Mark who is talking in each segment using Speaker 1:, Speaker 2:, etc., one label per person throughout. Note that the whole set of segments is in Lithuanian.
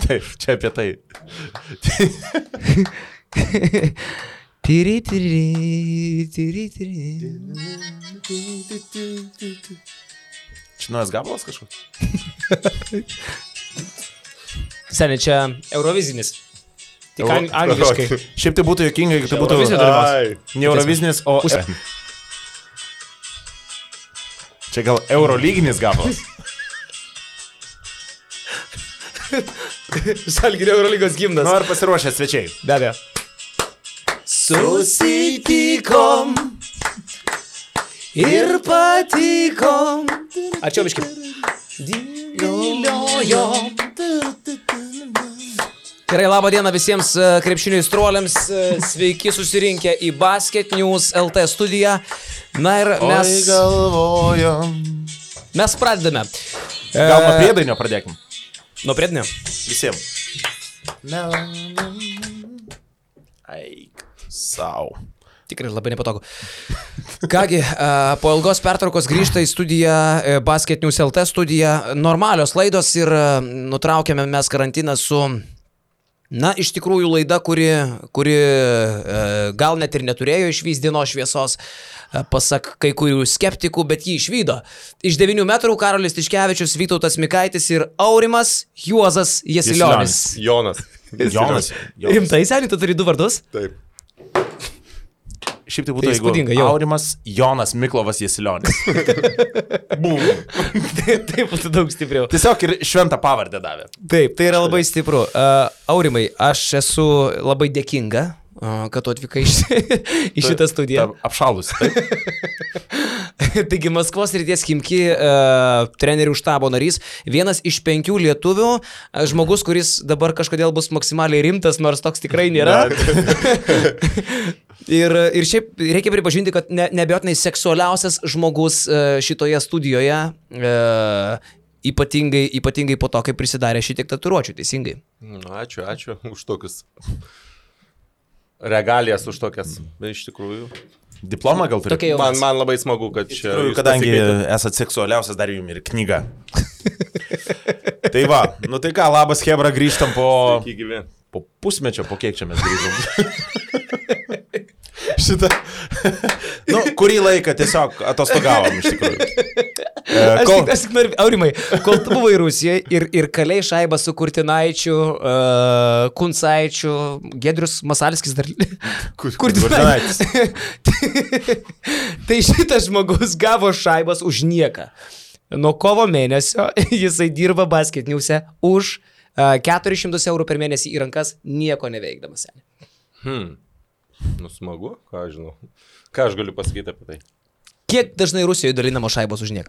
Speaker 1: Taip, čia apie tai. Čia naujas gabalas kažkoks?
Speaker 2: Seniai, čia Eurovizinis. Tik angliškai.
Speaker 1: Šiaip tai būtų juokinga, jeigu tai būtų ne Eurovizinis, o... Čia gal Eurolyginis gabalas.
Speaker 2: Žalgirio Eurolygos gimnas.
Speaker 1: Nu, ar pasiruošę svečiai?
Speaker 2: Be abejo. Susitikom ir patikom. Ačiū, biškai. Diliojom. Gerai, labą dieną visiems krepšinio aistruoliams. Sveiki susirinkę į Basket News LT studiją. Na ir mes...
Speaker 1: Oi, galvojom.
Speaker 2: Mes pradedame.
Speaker 1: Gal nuo priedainio pradėkim?
Speaker 2: Nuo priedainio?
Speaker 1: Visiems. Eik sau.
Speaker 2: Tikrai labai nepatogu. Kągi, po ilgos pertraukos grįžta į studiją Basket News LT studiją. Normalios laidos ir nutraukėme mes karantiną su... Na, iš tikrųjų laida, kuri gal net ir neturėjo išvys dienos šviesos, pasak kai kurių skeptikų, bet jį išvydo. Iš 9 metrų Karolis Tiškevičius, Vytautas Mikaitis ir Aurimas Juozas Jasilionis.
Speaker 3: Jonas.
Speaker 2: Rimtai, seniai, tu turi 2 vardus?
Speaker 3: Taip.
Speaker 1: Šiaip tai būtų, jeigu Aurimas Jonas Miklovas Jasilionis.
Speaker 2: Bum. Taip būtų daug stipriau.
Speaker 1: Tiesiog ir šventą pavardę davė.
Speaker 2: Taip, tai yra labai stipru. Aurimai, aš esu labai dėkinga, kad tu atvykai į šitą studiją.
Speaker 1: Apšalus, taip?
Speaker 2: Taigi Maskvos srities Chimki trenerių štabo narys, vienas iš 5 lietuvių, žmogus, kuris dabar kažkodėl bus maksimaliai rimtas, nors toks tikrai nėra. Ir šiaip reikia pripažinti, kad neabejotinai seksualiausias žmogus šitoje studijoje, ypatingai po to, kai prisidarė šitiek tatuiruočių, teisingai.
Speaker 3: Ačiū už tokius regalijas, už tokias, iš tikrųjų.
Speaker 1: Diplomą gal turi?
Speaker 3: Man labai smagu, kad čia...
Speaker 1: Kadangi esat seksualiausias, dar jums ir knyga. Tai va, nu tai ką, labas Hebra, grįžtam po pusmečio, po kiek čia mes grįžom. Šitą. Nu, kurį laiką tiesiog atostogavom iš tikrųjų.
Speaker 2: Aš tik noriu, Aurimai, kol tu buvai Rusijoje ir kalėjai šaibą su Kurtinaičiu, Kuncaičiu, Giedrius Masalskis dar... Kurtinaitis. Tai šitas žmogus gavo šaibas už nieką. Nuo kovo mėnesio jisai dirba Basket News'e už 400 eurų per mėnesį į rankas, nieko neveikdamas.
Speaker 3: Nu, smagu, ką aš žinau. Ką aš galiu pasakyti apie tai?
Speaker 2: Kiek dažnai Rusijoje dalinamos šaibos už nieką?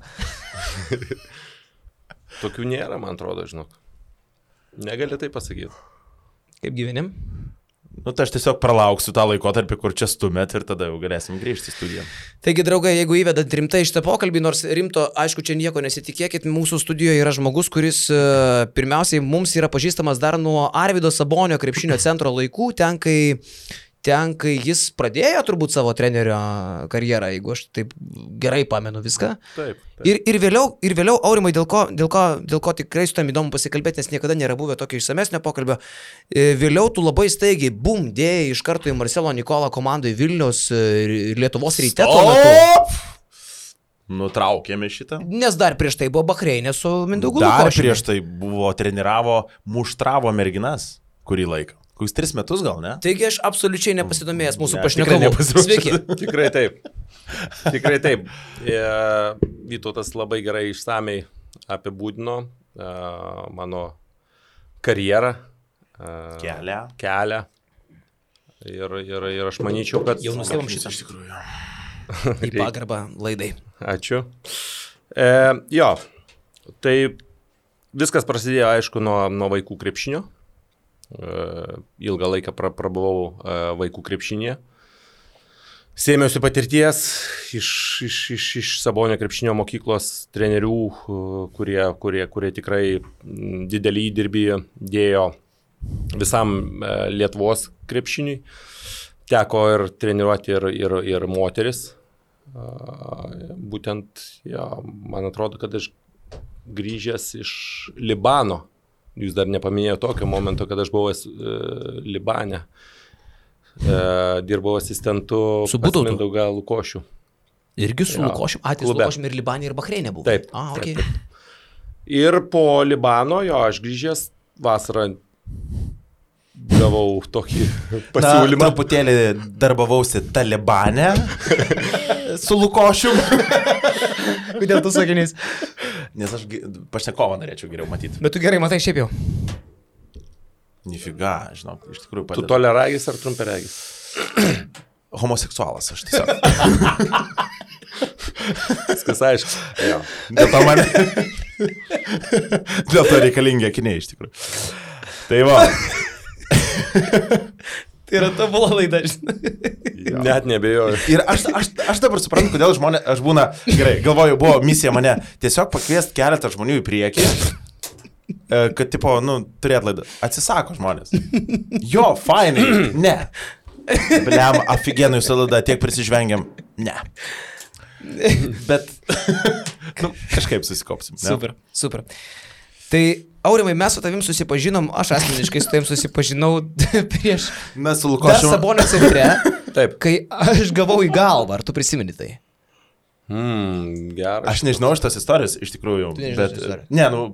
Speaker 3: Tokių nėra, man atrodo, žinok. Negali tai pasakyti.
Speaker 2: Kaip gyvenim?
Speaker 1: Nu, tai aš tiesiog pralauksiu tą laikotarpį, kur čia stumėt ir tada jau galėsim grįžti į studiją.
Speaker 2: Taigi, draugai, jeigu įvedat rimtai šitą pokalbį, nors rimto, aišku, čia nieko nesitikėkit, mūsų studijoje yra žmogus, kuris pirmiausiai mums yra pažįstamas dar nuo Arvydo Sabonio krepšinio centro laikų, ten, kai jis pradėjo turbūt savo trenerio karjerą, jeigu aš taip gerai pamenu viską.
Speaker 3: Taip.
Speaker 2: Ir vėliau, Aurimai, dėl ko tikrai su tam įdomu pasikalbėti, nes niekada nėra buvę tokio išsamesnio pokalbio. Vėliau tu labai staigiai, bum, dėjai iš karto į Marcelo Nikola komandai Vilniaus Lietuvos Ryte tuo metu.
Speaker 1: Nutraukėme šitą.
Speaker 2: Nes dar prieš tai buvo Bahreinė su Mindaugu Lukošiumi.
Speaker 1: Dar prieš tai buvo muštravo merginas kurį laiką. Kokius 3 metus gal, ne?
Speaker 2: Taigi aš absoliučiai nepasidomėjęs mūsų pašnekovų. Sveiki.
Speaker 3: Tikrai taip. Vytautas labai gerai išsamiai apibūdino mano karjerą. Kelią. Ir aš manyčiau, kad...
Speaker 2: Jau nustebam šitą.
Speaker 1: Iš tikrųjų.
Speaker 2: Į pagarbą laidai.
Speaker 3: Ačiū. Jo, tai viskas prasidėjo, aišku, nuo vaikų krepšinio. Ilgą laiką prabuvau vaikų krepšinėje. Sėmiausi patirties iš Sabonio krepšinio mokyklos trenerių, kurie tikrai didelį įdirbį dėjo visam Lietuvos krepšiniui. teko ir treniruoti ir moteris. Būtent, man atrodo, kad aš grįžęs iš Libano, jūs dar nepaminėjote tokio momento, kad aš buvau Libane, dirbau asistentu pas Mindaugą Lukošių.
Speaker 2: Irgi su Lukošiu, Lukošiu ir Libanė ir Bahreinė buvo.
Speaker 3: Taip,
Speaker 2: okay.
Speaker 3: Ir po Libano, aš grįžęs vasarą gavau tokį pasiūlymą.
Speaker 1: Truputėlį darbavausi Talibane su Lukošiu.
Speaker 2: Kodėl tu sakinys?
Speaker 1: Nes aš pašnekovą norėčiau geriau matyti.
Speaker 2: Bet tu gerai matai šiaip jau.
Speaker 1: Nifiga, žinau, iš tikrųjų padeda.
Speaker 3: Tu toliaragis ar trumpiaragis?
Speaker 1: Homoseksualas, aš tiesiog.
Speaker 3: Viskas aišku. Jo.
Speaker 1: Dėl to reikalingi akiniai, iš tikrųjų. Tai va.
Speaker 2: Tai yra tobula laida,
Speaker 3: Net nebejoju.
Speaker 1: Ir aš dabar suprantu, kodėl žmonės, aš būna, gerai, galvoju, buvo misija mane tiesiog pakviesti keletą žmonių į priekį, kad, tipo, turėt laidą. Atsisako žmonės. Jo, fainai, ne. Bliam, aфиgenai jūsų laida, tiek prisižvengiam. Ne. Bet, kažkaip susikopsim.
Speaker 2: Ne? Super. Tai, Aurimai, mes su tavim susipažinom, aš asmeniškai su tavim susipažinau prieš
Speaker 1: mes su Lukošiu
Speaker 2: Sabonio centre,
Speaker 3: taip.
Speaker 2: Kai aš gavau į galvą, ar tu prisimeni tai?
Speaker 3: Geras.
Speaker 1: Aš nežinau šitos istorijos, iš tikrųjų, bet,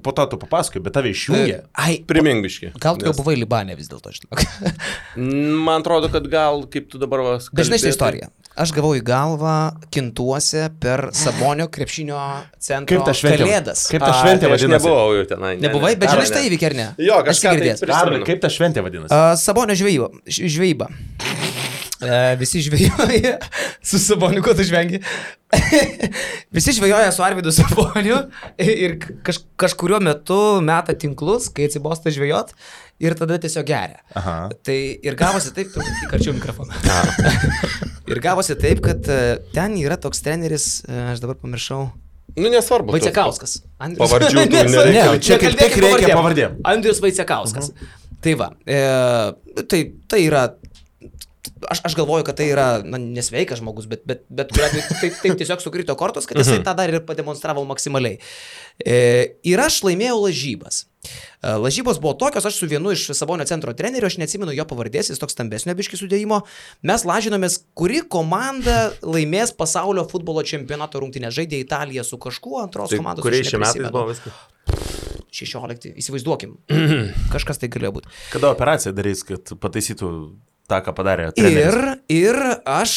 Speaker 1: po to tu papasakoji, bet tave išjungė.
Speaker 3: Primingbiški.
Speaker 2: Gal tu jau buvai Libane vis dėlto, žinok.
Speaker 3: Man atrodo, kad gal, kaip tu dabar vas...
Speaker 2: Bet žinai šitą istoriją. Aš gavau į galvą Kintuose per Sabonio krepšinio centro Kalėdas.
Speaker 1: Kaip ta šventė vadinasi?
Speaker 3: Aš nebuvau jau tenai.
Speaker 2: Nebuvai, bet žinai šitą įvykį, ar ne?
Speaker 3: Jo, kažką
Speaker 1: tai kaip ta šventė vadinasi?
Speaker 2: Sabonio žvejyba. Visi žvejoja su Saboniu, ko tu žvengi. Visi žvejoja su Arvydu Saboniu ir kažkuriuo metu meta tinklus, kai atsibosta žvejot ir tada tiesiog geria.
Speaker 1: Aha.
Speaker 2: Tai ir gavosi taip, įkarčiau mikrofoną. Ir gavosi taip, kad ten yra toks treneris, aš dabar pamiršau.
Speaker 3: Nesvarbu.
Speaker 2: Vaicekauskas.
Speaker 3: Pavardžių tu
Speaker 1: nereikia. Čia kaip tik reikia pavardėm.
Speaker 2: Andrius Vaicekauskas. Tai va, tai yra... Aš galvoju, kad tai yra nesveikas žmogus, bet taip tiesiog sukrito kortos, kad jisai tą dar ir pademonstravo maksimaliai. Ir aš laimėjau lažybas. Lažybos buvo tokios, aš su vienu iš Sabonio centro trenerių, aš neatsimenu jo pavardės, jis toks stambesnio biškį sudėjimo, mes lažinomės, kuri komanda laimės pasaulio futbolo čempionato rungtynę. Žaidė Italija su kažkuo, antros komandos.
Speaker 3: Kuriais šiais metais buvo viskas?
Speaker 2: 16, įsivaizduokim. Kažkas tai galėjo būti.
Speaker 1: Kada operaciją darys, kad pataisytų tą, ką padarė treneris?
Speaker 2: Ir aš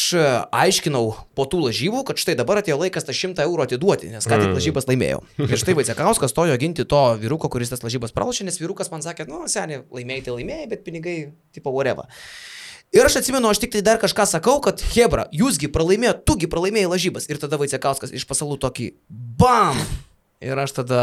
Speaker 2: aiškinau po tų lažybų, kad štai dabar atėjo laikas tą 100 eurų atiduoti, nes ką tik lažybas laimėjau. Ir štai Vaicekauskas stojo ginti to vyruko, kuris tas lažybas pralošė, nes vyrukas man sakė, seniai, laimėjai, bet pinigai, tipo whatever. Ir aš atsimenu, aš tik tai dar kažką sakau, kad hebra, jūsgi pralaimėjo, tugi pralaimėjai lažybas. Ir tada Vaicekauskas iš pasalų tokį BAM! Ir aš tada,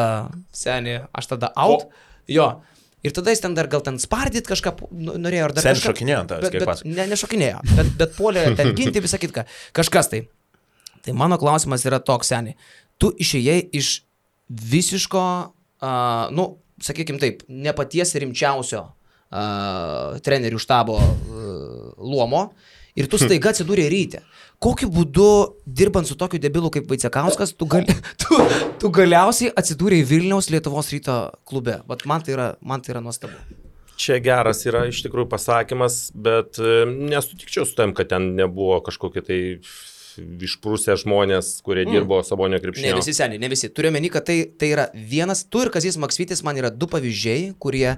Speaker 2: seniai, out. Jo. Ir tada jis ten dar gal ten spardyt kažką norėjo.
Speaker 1: Sen šokinėjo ant tavęs, kaip pas.
Speaker 2: Nešokinėjo, bet puolė ten ginti visą kitką. Kažkas tai. Tai mano klausimas yra toks, seniai. Tu išėjai iš visiško, sakykim taip, ne paties rimčiausio trenerių štabo luomo ir tu staiga atsidūrė ryte. Kokiu būdu, dirbant su tokiu debilu kaip Vaicekauskas, tu galiausiai atsidūrė Vilniaus Lietuvos Ryto klube? Vat man tai yra nuostabu.
Speaker 3: Čia geras yra iš tikrųjų pasakymas, bet nesutikčiau su tam, kad ten nebuvo kažkokie tai išprūsę žmonės, kurie dirbo Sabonio krepšinio.
Speaker 2: Ne visi seniai, ne visi. Turiu omeny, kad tai yra vienas, tu ir Kazys Maksvytis man yra du pavyzdžiai, kurie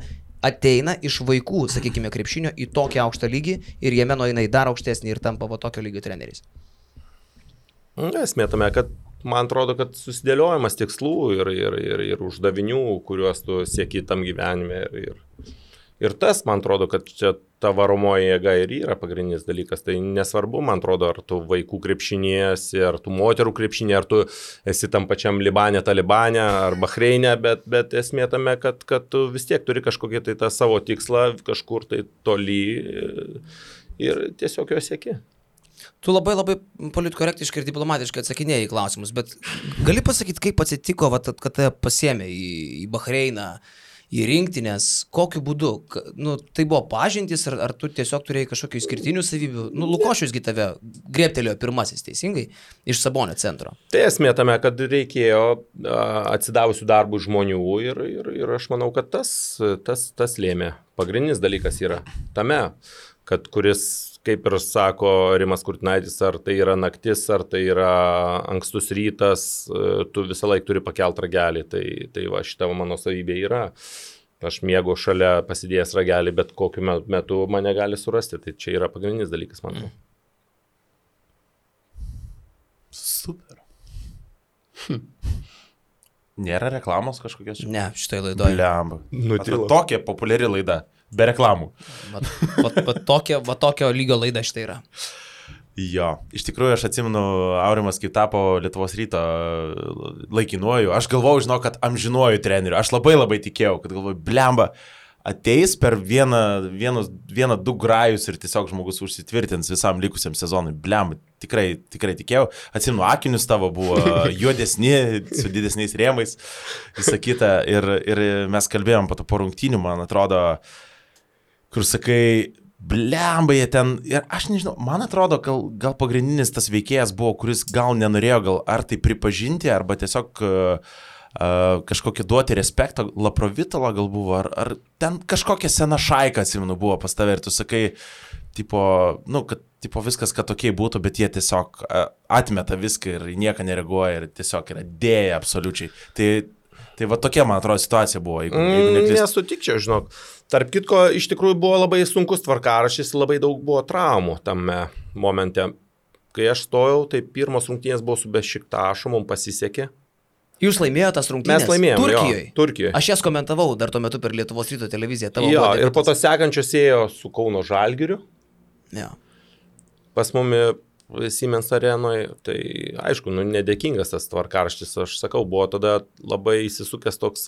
Speaker 2: ateina iš vaikų, sakykime, krepšinio į tokį aukštą lygį ir jame nueina į dar aukštesnį ir tampa tokio lygio treneriais.
Speaker 3: Esmė tame, kad man atrodo, kad susidėliojimas tikslų ir uždavinių, kuriuos tu sieki tam gyvenime. Ir tas, man atrodo, kad čia ta varomoji jėga ir yra pagrindinis dalykas. Tai nesvarbu, man atrodo, ar tu vaikų krepšinėsi, ar tu moterų krepšinė, ar tu esi tam pačiam Libane, Talibane, ar Bahreinė, bet esmė tame, kad tu vis tiek turi kažkokį tai tą savo tikslą kažkur tai toli ir tiesiog jo sieki.
Speaker 2: Tu labai politkorektiškai ir diplomatiškai atsakinėjai į klausimus, bet gali pasakyti, kaip atsitiko, kad pasiėmė į Bahreiną, į rinktinės, kokiu būdu? Nu, tai buvo pažintys, ar tu tiesiog turėjai kažkokių išskirtinių savybių? Nu, Lukošiusgi tave griebtelėjo pirmasis, teisingai, iš Sabonio centro.
Speaker 3: Tai esmė tame, kad reikėjo atsidavusių darbų žmonių ir aš manau, kad tas lėmė. Pagrindinis dalykas yra tame, kad kuris, kaip ir sako Rimas Kurtinaitis, ar tai yra naktis, ar tai yra ankstus rytas, tu visą laiką turi pakelt ragelį. Tai va, šita mano savybė yra. Aš mėgau šalia pasidėjęs ragelį, bet kokiu metu mane gali surasti. Tai čia yra pagrindinis dalykas, manau.
Speaker 1: Super. Nėra reklamos kažkokios?
Speaker 2: Ne, šitai laidoje.
Speaker 1: Blemba.
Speaker 3: Nutilo.
Speaker 1: Tokia populiari laida. Be reklamų.
Speaker 2: Va tokio lygio laida šitai yra.
Speaker 1: Jo, iš tikrųjų aš atsimenu, Aurimas kaip tapo Lietuvos Ryto laikinuoju. Aš galvojau, žinau, kad amžinuoju treneriu. Aš labai tikėjau, kad galvoju, blemba, ateis per vieną, du grajus ir tiesiog žmogus užsitvirtins visam likusiam sezonui. Blemba, tikrai tikėjau. Atsimenu, akinius tavo buvo juodesni, su didesniais rėmais, visą kitą. Ir mes kalbėjom po rungtynių, man atrodo, kur sakai, blemba jie ten, ir aš nežinau, man atrodo, gal pagrindinis tas veikėjas buvo, kuris gal nenorėjo gal ar tai pripažinti, arba tiesiog kažkokį duoti respektą, Laprovitalo gal buvo, ar ten kažkokia sena šaika, atsimenu, buvo pas tave ir tu sakai, kad viskas, kad tokiai būtų, bet jie tiesiog atmeta viską ir nieką nereaguoja ir tiesiog yra dėja absoliučiai. Tai va tokia, man atrodo, situacija buvo.
Speaker 3: Nesutikčiau, žinok. Tarp kitko, iš tikrųjų buvo labai sunkus tvarkaraštis, labai daug buvo traumų tame momente. Kai aš stojau, tai pirmos rungtynės buvo su Bešiktašu, mums pasisekė.
Speaker 2: Jūs laimėjote tas rungtynės?
Speaker 3: Mes laimėjome.
Speaker 2: Turkijoje?
Speaker 3: Turkijoje.
Speaker 2: Aš jas komentavau dar tuo metu per Lietuvos Ryto televiziją.
Speaker 3: Jo, ir po to sekančios ėjo su Kauno Žalgiriu.
Speaker 2: Jo.
Speaker 3: Pas mumi Siemens arenoje, tai aišku, nedėkingas tas tvarkaraštis, aš sakau, buvo tada labai įsisukęs toks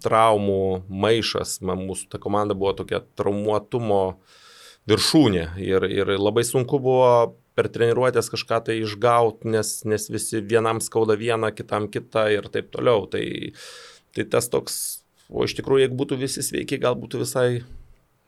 Speaker 3: traumų maišas, mūsų ta komanda buvo tokia traumuotumo viršūnė ir labai sunku buvo per treniruotės kažką tai išgauti, nes visi vienam skauda vieną, kitam kitą ir taip toliau, tai tas toks, o iš tikrųjų, jeigu būtų visi sveiki, gal būtų visai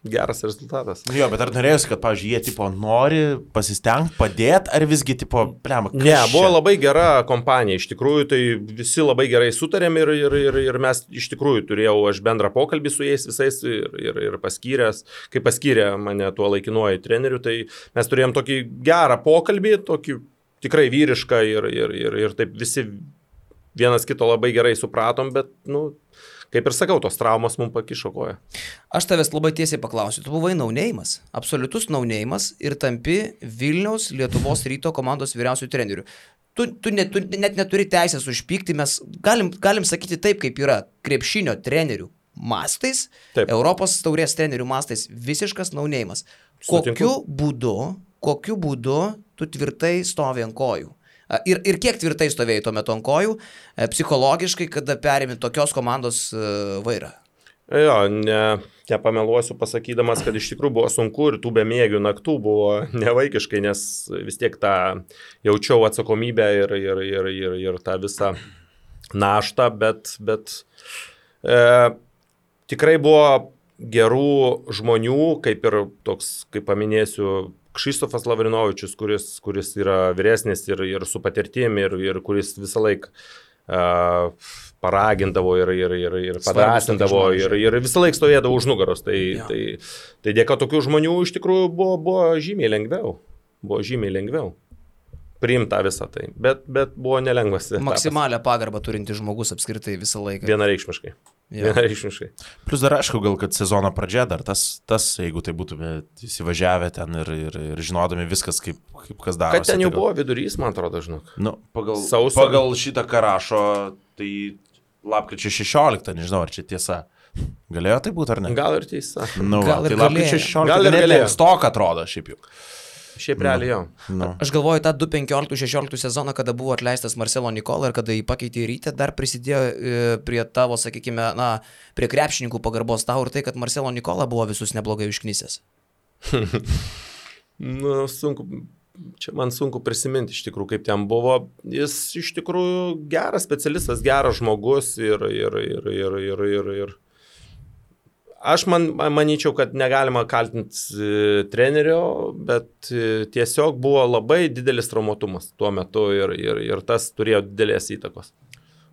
Speaker 3: geras rezultatas.
Speaker 1: Jo, bet ar norėjusi, kad, pavyzdžiui, jie tipo nori pasistengti, padėti, ar visgi tipo, blema,
Speaker 3: Ne, buvo labai gera kompanija, iš tikrųjų, tai visi labai gerai sutarėm ir mes iš tikrųjų turėjau aš bendrą pokalbį su jais visais ir paskyręs, kai paskyrė mane tuo laikinuoju treneriu, tai mes turėjom tokį gerą pokalbį, tokį tikrai vyrišką ir taip visi vienas kito labai gerai supratom, bet, kaip ir sakau, tos traumos mums pakišo koją.
Speaker 2: Aš tavęs labai tiesiai paklausiu, tu buvai naunėjimas, absoliutus naunėjimas ir tampi Vilniaus Lietuvos Ryto komandos vyriausiųjų trenerių. Tu net neturi teisės užpykti, mes galim sakyti taip, kaip yra krepšinio trenerių mastais,
Speaker 3: taip.
Speaker 2: Europos taurės trenerių mastais, visiškas naunėjimas. Kokiu būdu tu tvirtai stovi ant kojų? Ir kiek tvirtai stovėjai tuo metu ant kojų, psichologiškai, kada perėmė tokios komandos vairą?
Speaker 3: Jo, nepameluosiu pasakydamas, kad iš tikrųjų buvo sunku ir tų bemiegių naktų buvo nevaikiškai, nes vis tiek tą jaučiau atsakomybę ir tą visą naštą, bet tikrai buvo gerų žmonių, kaip ir toks, kaip paminėsiu, Kšištofas Lavrinovičius, kuris yra vyresnis ir su patirtim ir kuris visą laiką paragindavo ir padrasindavo ir visą laiką stovėdavo už nugaros. Tai dėka tokių žmonių iš tikrųjų buvo žymiai lengviau priimta visą tai, bet buvo nelengvas.
Speaker 2: Maksimalią pagarbą turinti žmogus apskritai visą laiką.
Speaker 3: Vienareikšmiškai.
Speaker 1: Plus dar aišku, gal kad sezono pradžia dar tas jeigu tai būtume įsivažiavę ten ir žinodami viskas, kaip kas darosi.
Speaker 3: Kad ten jau buvo vidurys, man atrodo, žinok.
Speaker 1: Pagal šitą karašo, tai lapkričio 16, nežinau, ar čia tiesa. Galėjo tai būti ar ne?
Speaker 3: Gal ir tiesa.
Speaker 2: Gal ir
Speaker 1: tai lapkričio 16
Speaker 3: gal ir galėjo.
Speaker 1: Stok atrodo šiaip jau.
Speaker 3: Šiaip realiai jau.
Speaker 2: Aš galvoju, tą 2015-2016 sezoną, kada buvo atleistas Marcelo Nikola ir kada jį pakeitė į Rytę, dar prisidėjo prie tavo, sakykime, prie krepšininkų pagarbos tau ir tai, kad Marcelo Nikola buvo visus neblogai užknisęs.
Speaker 3: Sunku. čia man sunku prisiminti iš tikrųjų, kaip ten buvo. Jis iš tikrųjų geras specialistas, geras žmogus ir aš manyčiau, kad negalima kaltinti trenerio, bet tiesiog buvo labai didelis traumuotumas tuo metu ir tas turėjo didelės įtakos.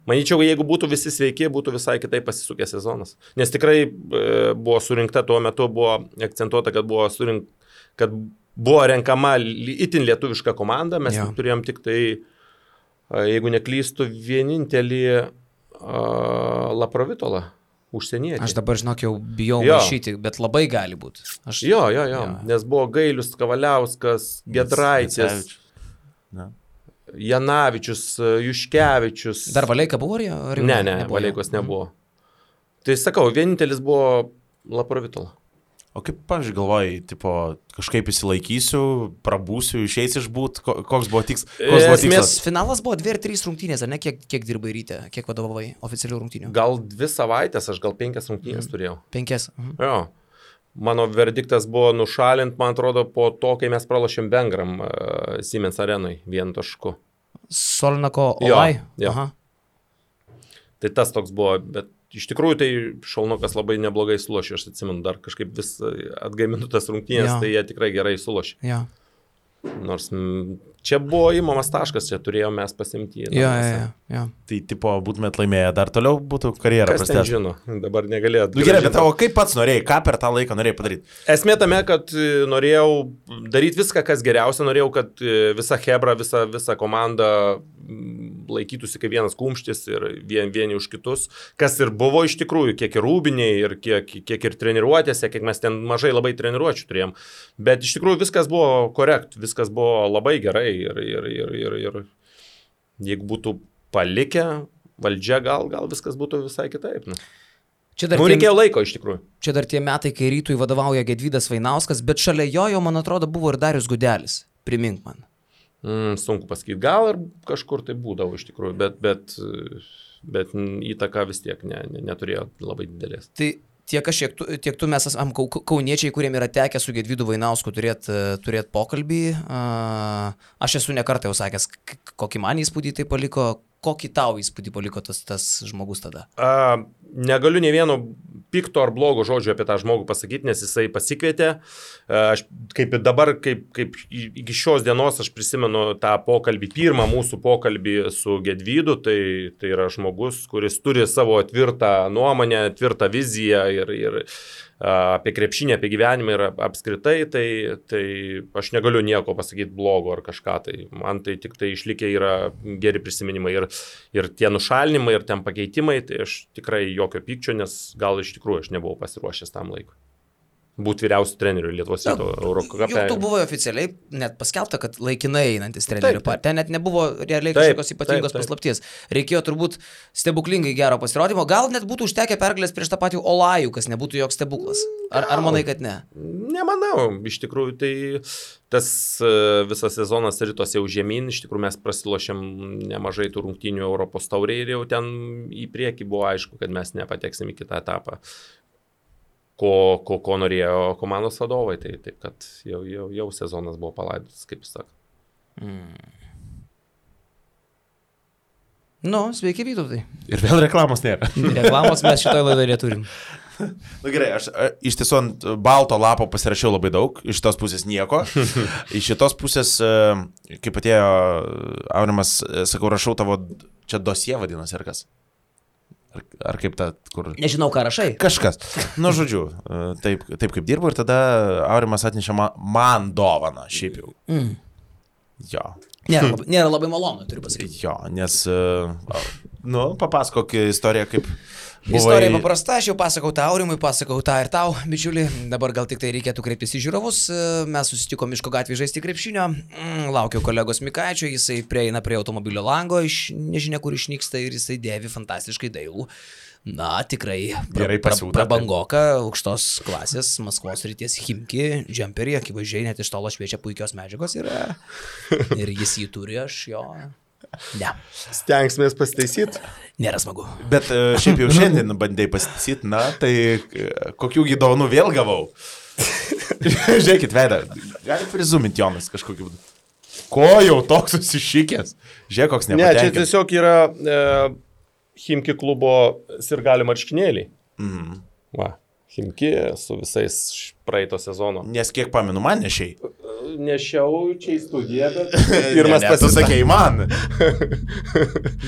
Speaker 3: Manyčiau, jeigu būtų visi sveiki, būtų visai kitaip pasisukęs sezonas. Nes tikrai buvo surinkta tuo metu, buvo akcentuota, kad buvo renkama itin lietuviška komanda. Mes turėjom tik tai, jeigu neklystu, vienintelį Laprovitolą, užsienietį.
Speaker 2: Aš dabar, žinok, jau bijau maišyti, bet labai gali būti.
Speaker 3: Jo. Nes buvo Gailius, Kavaliauskas, Gedraitis. Janavičius, Juškevičius.
Speaker 2: Dar Valeika buvo?
Speaker 3: Ne, Valeikos nebuvo. Tai sakau, vienintelis buvo Laprovitola.
Speaker 1: O kaip, pavyzdžiui, galvojai, tipo, kažkaip įsilaikysiu, prabūsiu, išeisi išbūt, koks buvo tikslas?
Speaker 2: Finalas buvo 2 ar 3 rungtynės, ar ne? Kiek dirbai ryte, kiek vadovavai oficialių rungtynių?
Speaker 3: Gal 2 savaitės, aš gal 5 rungtynės turėjau.
Speaker 2: 5?
Speaker 3: Jo. Mano verdiktas buvo nušalint, man atrodo, po to, kai mes pralošėm Vengram Siemens arenui 1 tašku.
Speaker 2: Solnako Olai?
Speaker 3: Jo. Aha. Tai tas toks buvo, bet iš tikrųjų tai Šalnokas labai neblogai sulošė, aš atsimenu, dar kažkaip vis atgaiminu tas rungtynės, tai jie tikrai gerai sulošė.
Speaker 2: Jo.
Speaker 3: Nors čia buvo įmamas taškas, čia turėjome mes pasimti.
Speaker 2: Jo.
Speaker 1: Tai, tipo, būtumėt laimėję, dar toliau būtų karjerą
Speaker 3: prastęs. Kas ten žino, dabar negalėjo.
Speaker 1: Gerai, bet tavo kaip pats norėjai, ką per tą laiką norėjai padaryti?
Speaker 3: Esmė tame, kad norėjau daryti viską, kas geriausia, norėjau, kad visa hebra, visa komanda laikytųsi kaip vienas kumštis ir vieni už kitus, kas ir buvo iš tikrųjų, kiek ir rūbiniai, ir kiek ir treniruotėse, kiek mes ten mažai labai treniruočių turėjom. Bet iš tikrųjų viskas buvo korekt, viskas buvo labai gerai ir jeigu būtų palikę valdžia, gal viskas būtų visai kitaip. Reikėjo laiko iš tikrųjų.
Speaker 2: Čia dar tie metai, kai Rytui vadovauja Gedvydas Vainauskas, bet šalia jo, man atrodo, buvo ir Darius Gudelis. Primink man.
Speaker 3: Sunku pasakyti, gal ir kažkur tai būdavo iš tikrųjų, bet įtaka vis tiek neturėjo labai didelės.
Speaker 2: Tai tiek tu mes esam kauniečiai, kuriem yra tekę su Gedvydu Vainausku turėt pokalbį. Aš esu nekartą jau sakęs, kokį man įspūdį tai paliko, kokį tau įspūdį paliko tas žmogus tada?
Speaker 3: Negaliu ne vieno pikto ar blogo žodžio apie tą žmogų pasakyti, nes jisai pasikvietė. Aš kaip iki šios dienos aš prisimenu tą pokalbį, pirmą mūsų pokalbį su Gedvydu, tai yra žmogus, kuris turi savo tvirtą nuomonę, tvirtą viziją ir apie krepšinį, apie gyvenimą ir apskritai, tai aš negaliu nieko pasakyti blogo ar kažką, tai man tai tik tai išlikę yra geri prisiminimai ir tie nušalinimai, ir ten pakeitimai, tai aš tikrai jokio pykčio, nes gal iš tikrųjų aš nebuvau pasiruošęs tam laikui. Būti vyriausių trenerių Lietuvos ryto Eurocape.
Speaker 2: Jau tu buvo oficialiai net paskelbta, kad laikinai einantis trenerių partija. Ten net nebuvo realiai kažkokios ypatingos paslapties. Reikėjo turbūt stebuklingai gero pasirodymo. Gal net būtų užtekę pergalės prieš tą patį Olajų, kas nebūtų joks stebuklas. Ar manai, kad ne?
Speaker 3: Nemanau. Iš tikrųjų, tai tas visas sezonas rytos jau žemyn. Iš tikrųjų, mes prasilošėm nemažai tų rungtynių Europos taurėje ir jau ten į priekį buvo aišku, kad mes nepateksim į kitą etapą. Ko norėjo komandos vadovai, tai taip, kad jau sezonas buvo palaidotas, kaip jis sako.
Speaker 2: Sveiki, Vytautai.
Speaker 1: Ir vėl reklamos nėra.
Speaker 2: Reklamos mes šitoje laidoje turim.
Speaker 1: Gerai, aš iš tiesų ant balto lapo pasirašiau labai daug, iš tos pusės nieko. Iš šitos pusės, kaip atėjo Aurimas, sakau, rašau tavo, čia dosie vadinasi, ar kas? Ar kaip ta, kur...
Speaker 2: Nežinau, ką rašai.
Speaker 1: Kažkas. Žodžiu, taip kaip dirbu ir tada Aurimas atnešė man dovaną, šiaip jau. Jo.
Speaker 2: Nėra labai malonu, turiu pasakyti.
Speaker 1: Jo, nes, papasakok istoriją, kaip...
Speaker 2: Istorija paprasta, aš jau pasakau tą Aurimui, pasakau tą ir tau, bičiuli. Dabar gal tik tai reikėtų kreiptis į žiūrovus. Mes susitiko Miško gatvėje žaisti krepšinio. Laukiau kolegos Mikaičio, jisai prieina prie automobilio lango, nežinia kur išnyksta ir jisai dėvi fantastiškai dailų. Tikrai prabangoka, aukštos klasės, Maskvos srities Chimki, džemperį, akivaizdžiai net iš tolo šviečia puikios medžiagos yra. Ir jis jį turi, aš jo... Ne.
Speaker 3: Stengsimės pasitaisyti.
Speaker 2: Nėra smagu.
Speaker 1: Bet šiaip jau šiandien bandėjai pasitaisyti, tai kokių dovanų vėl gavau. Žiūrėkit, veidą, gali prizuminti Jonas kažkokiu būdu. Ko jau toks susišykęs? Žiūrėk, koks
Speaker 3: Ne, čia
Speaker 1: nepatenkintas.
Speaker 3: tiesiog yra Chimki klubo sirgalių marškinėliai. Va, Chimki su visais praeito sezono.
Speaker 1: Nes kiek pamenu, man nešiai.
Speaker 3: Nešiau čia į studiją, bet pirmas
Speaker 1: Tu
Speaker 3: pasisakė.
Speaker 1: sakei man.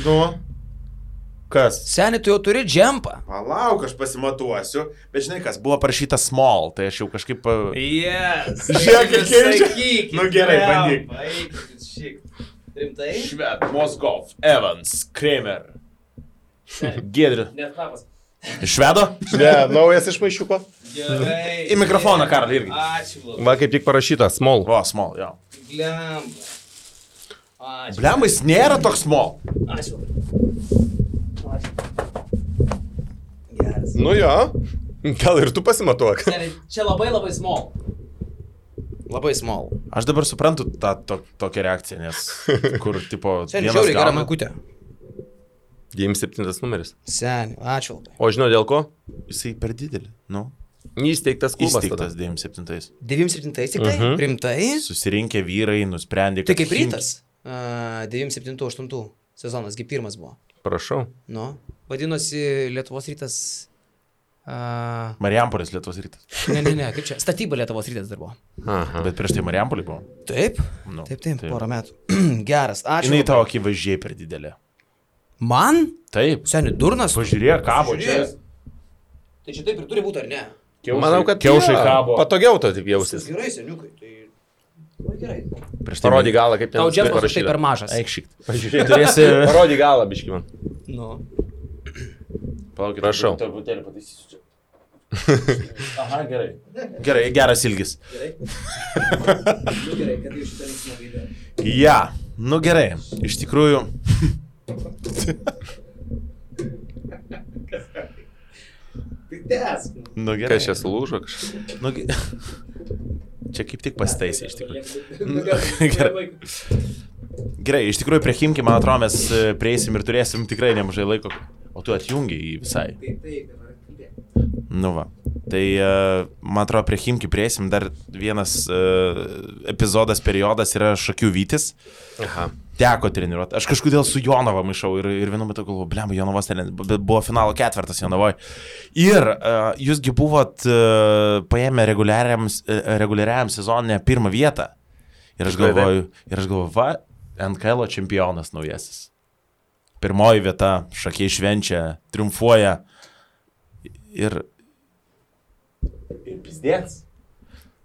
Speaker 1: Nu. Kas?
Speaker 2: Seni, tu jau turi džempą.
Speaker 1: Palauk, aš pasimatuosiu. Bet žinai kas, buvo parašyta small, tai aš jau kažkaip...
Speaker 2: Yes.
Speaker 1: Žiūrėk, kaip keičia. Nu gerai, bandyk.
Speaker 2: Rimtai?
Speaker 1: Šved, Moskov, Evans, Kramer. Giedri.
Speaker 2: Net knapas.
Speaker 1: Švedo?
Speaker 3: Ne, naujas iš maišiuko.
Speaker 2: Gerai.
Speaker 1: Į mikrofoną, Karl, irgi.
Speaker 2: Ačiū labai.
Speaker 3: Va, kaip tik parašyta, small.
Speaker 1: O, small, jo.
Speaker 2: Blemba. Ačiū.
Speaker 1: Blemba, jis nėra toks small.
Speaker 2: Ačiū. Ačiū. Geras.
Speaker 3: Nu jo, gal ir tu pasimatuok.
Speaker 2: Seni, čia labai labai small. Labai small.
Speaker 1: Aš dabar suprantu tą tokią reakciją, nes kur, tipo,
Speaker 2: Seni, žiauriai gera maikutė.
Speaker 3: 97 numeris.
Speaker 2: Seni, ačiū labai.
Speaker 3: O žinau dėl ko?
Speaker 1: Jisai per didelį, nu.
Speaker 3: Įsteigtas klubas tada.
Speaker 1: Įsteigtas 97.
Speaker 2: 97 tik tai? Rimtai?
Speaker 1: Susirinkę vyrai nusprendė,
Speaker 2: Tai kaip rytas? 97-8 sezonas, gi pirmas buvo.
Speaker 3: Prašau.
Speaker 2: Nu, vadinosi Lietuvos rytas.
Speaker 1: Marijampolės Lietuvos rytas.
Speaker 2: Ne, kaip čia? Statyba Lietuvos rytas dar buvo.
Speaker 3: Aha.
Speaker 1: Bet prieš tai Marijampolė buvo.
Speaker 2: Taip?
Speaker 1: Nu,
Speaker 2: Taip, porą metų. Geras, ačiū.
Speaker 1: Jinai
Speaker 2: labai.
Speaker 1: tavo akivaizdžiai per didelė.
Speaker 2: Man?
Speaker 1: Taip.
Speaker 2: Seni, durnas?
Speaker 1: Pažiūrėk, kabo čia.
Speaker 2: Tai čia taip ir turi būti, ar ne?
Speaker 3: Manau, kad
Speaker 1: kiaušai
Speaker 3: jo,
Speaker 1: kabo.
Speaker 3: Patogiau to taip jausis.
Speaker 2: Gerai, seniukai, tai... Labai gerai.
Speaker 1: Prieš tai
Speaker 3: Parody galą, kaip ten
Speaker 2: Tau džempas tai per mažas.
Speaker 1: Eikšyk.
Speaker 3: Pažiūrėk.
Speaker 1: Turėsi...
Speaker 3: Parody galą, biški man.
Speaker 2: Nu.
Speaker 1: Palaukit,
Speaker 3: Prašau.
Speaker 1: Truputėlį pataisysiu čia. Aha, gerai. Gerai, geras ilgis.
Speaker 2: Gerai. Nu gerai, kad iš šitą linksmą video.
Speaker 1: Ja, nu gerai. Iš tikrųjų...
Speaker 2: Tai tęsk.
Speaker 1: Nu gerai.
Speaker 3: Kas čia sulūžo kažkas?
Speaker 1: Nu, čia kaip tik pasitaisė iš tikrųjų.
Speaker 2: Nu gerai.
Speaker 1: Gerai, iš tikrųjų prie Chimki, man atrodo, mes prieisim ir turėsim tikrai nemažai laiko. O tu atjungi jį visai.
Speaker 2: Taip.
Speaker 1: Nu va. Tai, man atrodo, prie Chimki prieisim dar vienas epizodas, periodas yra Šakių Vytis.
Speaker 3: Aha.
Speaker 1: Teko treniruoti. Aš kažkodėl su Jonava maišau ir vienu metu galvoju, blemba, Jonavos buvo finalo ketvirtas Jonavoje. Ir jūsgi buvot paėmę reguliariam sezonė pirmą vietą. Ir aš galvoju, va, NKL čempionas naujasis. Pirmoji vieta, Šakiai švenčia, triumfuoja. Ir pizdėts.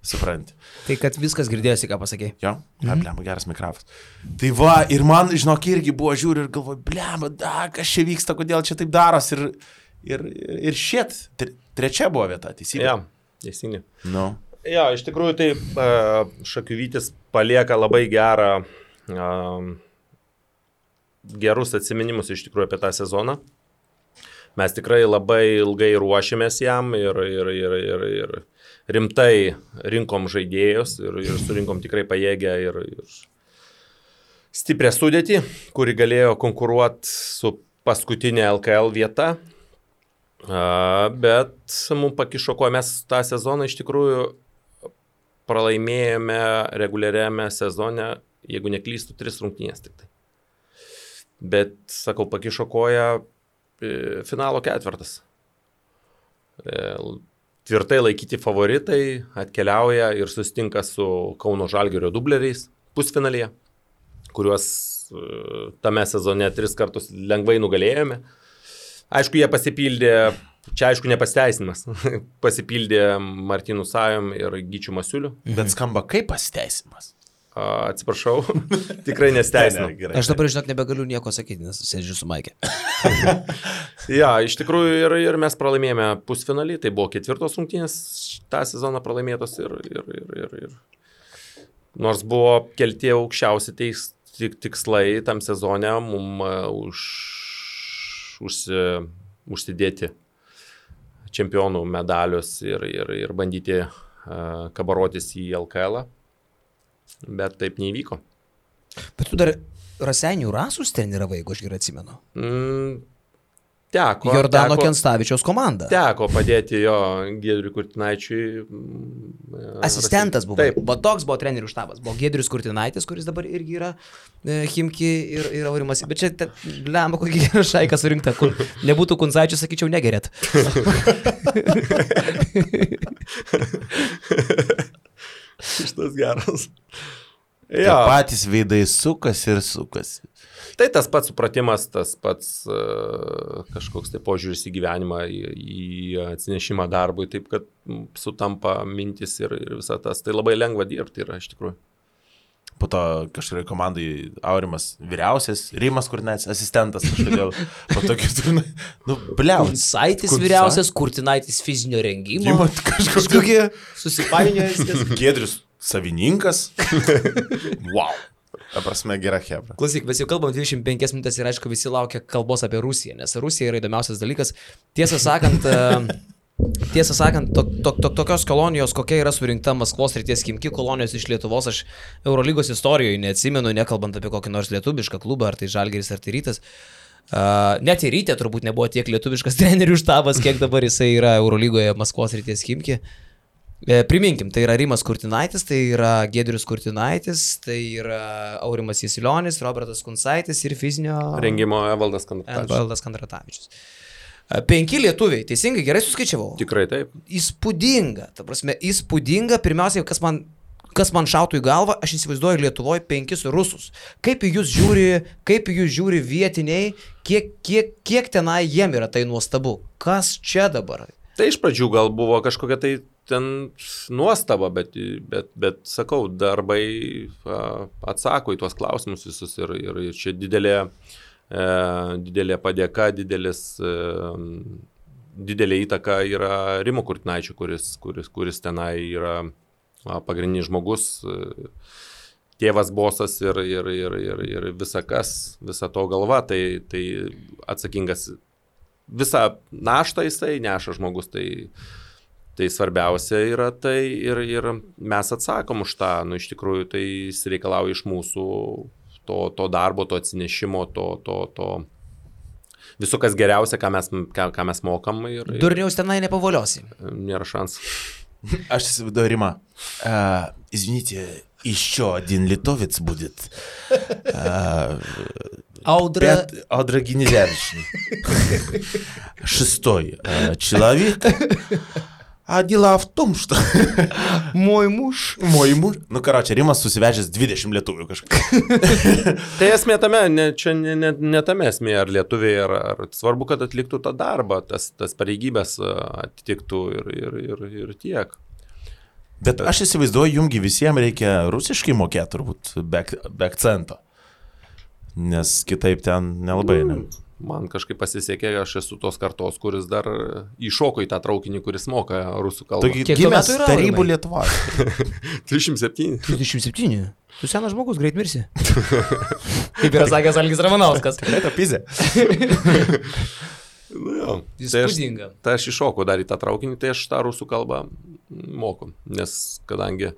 Speaker 1: Supranti.
Speaker 2: Tai kad viskas girdėjosi, ką pasakėjai.
Speaker 1: Jo, blemba, geras mikrofas. Tai va, ir man, žinok, irgi buvo žiūri ir galvoju, blemba, kas čia vyksta, kodėl čia taip daros ir šit. Trečia buvo vieta, teisingai.
Speaker 3: Ja, teisingai.
Speaker 1: Nu.
Speaker 3: Ja, iš tikrųjų tai Šakių Vytis palieka labai gerus atsiminimus iš tikrųjų apie tą sezoną. Mes tikrai labai ilgai ruošėmės jam ir rimtai rinkom žaidėjus ir surinkom tikrai pajėgę ir stiprią sudėtį, kuri galėjo konkuruoti su paskutinė LKL vieta. Bet mums pakišo, ko mes tą sezoną iš tikrųjų pralaimėjome reguliariame sezone, jeigu neklystu, 3 rungtynės tik tai. Bet, sakau, pakišo koją finalo ketvirtas. Tvirtai laikyti favoritai atkeliauja ir susitinka su Kauno Žalgirio dubleriais pusfinalyje, kuriuos tame sezone 3 kartus lengvai nugalėjome. Aišku, jie pasipildė, čia aišku nepasiteisinimas, pasipildė Martynu Sajom ir Gyčiu Masiuliu.
Speaker 1: Bet skamba kaip pasiteisinimas.
Speaker 3: Atsiprašau, tikrai nesteisinu.
Speaker 2: Aš dabar, žinok, nebegaliu nieko sakyti, nes sėdžiu su Maikė.
Speaker 3: Ja, iš tikrųjų ir mes pralaimėjome pusfinalį, tai buvo 4 rungtynės tą sezoną pralaimėtos ir nors buvo kelti aukščiausi tikslai tam sezone, mums užsidėti čempionų medalius ir bandyti kabarotis į LKL. Bet taip neįvyko.
Speaker 2: Bet tu dar Raseinių Rasus treniravai, jeigu aš gerai atsimenu. Jordano Kenstavičiaus komanda.
Speaker 3: Teko padėti jo Giedriui Kurtinaičiui.
Speaker 2: Asistentas buvo.
Speaker 3: Taip.
Speaker 2: Bet toks buvo trenerių štabas. Buvo Giedrius Kurtinaitis, kuris dabar irgi yra Chimki ir Aurimas. Bet čia, lemba, kokį gerą šaiką surinkta. Kur nebūtų Kuncaičių, sakyčiau, negerėt.
Speaker 3: Šitas geras.
Speaker 1: Ja. Patys veidai sukasi ir sukasi.
Speaker 3: Tai tas pats supratimas, tas pats kažkoks tai požiūris į gyvenimą, į atsinešimą darbui, taip kad sutampa mintis ir visą tas. Tai labai lengva dirbti yra iš tikrųjų.
Speaker 1: Po to kažkuria komandai Aurimas vyriausias, Rimas Kurtinaitis asistentas kažkodėl. Po to kitur,
Speaker 2: Kuncaitis vyriausias, Kurtinaitis fizinio rengimo.
Speaker 1: Kažkokie
Speaker 2: susipainiojas.
Speaker 1: Giedrius savininkas. Wow. Ta prasme, gera hebra.
Speaker 2: Klausyk, mes jau kalbam 25 minutės ir aišku visi laukia kalbos apie Rusiją, nes Rusija yra įdomiausias dalykas. Tiesą sakant, tokios kolonijos, kokia yra surinkta Maskvos srities Chimki kolonijos iš Lietuvos, aš Eurolygos istorijoje neatsimenu, nekalbant apie kokį nors lietuvišką klubą, ar tai Žalgiris, ar tai Rytas. Net ir Ryte turbūt nebuvo tiek lietuviškas trenerių štabas, kiek dabar jisai yra Eurolygoje Maskvos srities Chimki. Priminkim, tai yra Rimas Kurtinaitis, tai yra Giedrius Kurtinaitis, tai yra Aurimas Jasilionis, Robertas Kuncaitis ir fizinio
Speaker 3: rengimo Evaldas
Speaker 2: Kandratavičius. 5 lietuviai, teisingai, gerai suskaičiavau?
Speaker 3: Tikrai taip.
Speaker 2: Įspūdinga, ta prasme, įspūdinga. Pirmiausiai, kas man šautų į galvą, aš įsivaizduoju Lietuvoje 5 rusus. Kaip į jūs žiūri vietiniai, kiek tenai jiem yra tai nuostabu? Kas čia dabar?
Speaker 3: Tai iš pradžių gal buvo kažkokia tai ten nuostaba, bet sakau, darbai atsako į tuos klausimus visus ir čia didelė padėka, didelė įtaka yra Rimo Kurtinaičio, kuris tenai yra pagrindinis žmogus, tėvas bosas ir visa to galva, tai atsakingas visą naštą jisai neša žmogus, tai svarbiausia yra tai ir mes atsakom už tą, iš tikrųjų tai jis reikalauja iš mūsų to darbo, to atsinešimo, to viso kas geriausia, ką mes mokam.
Speaker 2: Durniaus tenai nepavoliosi.
Speaker 3: Nėra šansų.
Speaker 1: Aš įsivaizduoju, Rima, извините, еще один литовец будет. Аудра Генезяричный. 6-й человек. А дела в том, что... Мой муж. Nu, karočią, Rimas susivežęs 20 lietuvių kažkaip.
Speaker 3: Tai esmė tame, ne tame esmė, ar lietuviai, ar svarbu, kad atliktų tą darbą, tas pareigybės atitiktų ir tiek.
Speaker 1: Bet aš įsivaizduoju, jumgi visiems reikia rusiškai mokėti turbūt be akcento. Nes kitaip ten nelabai.
Speaker 3: Man kažkaip pasisekė, aš esu tos kartos, kuris dar įšoko į tą traukinį, kuris moka rusų kalbą.
Speaker 1: Taigi gimęs tarybų Lietuvos.
Speaker 3: 37.
Speaker 2: 37. Tu senas žmogus, greit mirsi. Kaip yra sakęs Algis Ramanauskas.
Speaker 1: Tikrai tapizė.
Speaker 2: Įspūdinga.
Speaker 3: Tai aš iššokau dar į tą traukinį, tai aš tą rusų kalbą moku. Nes kadangi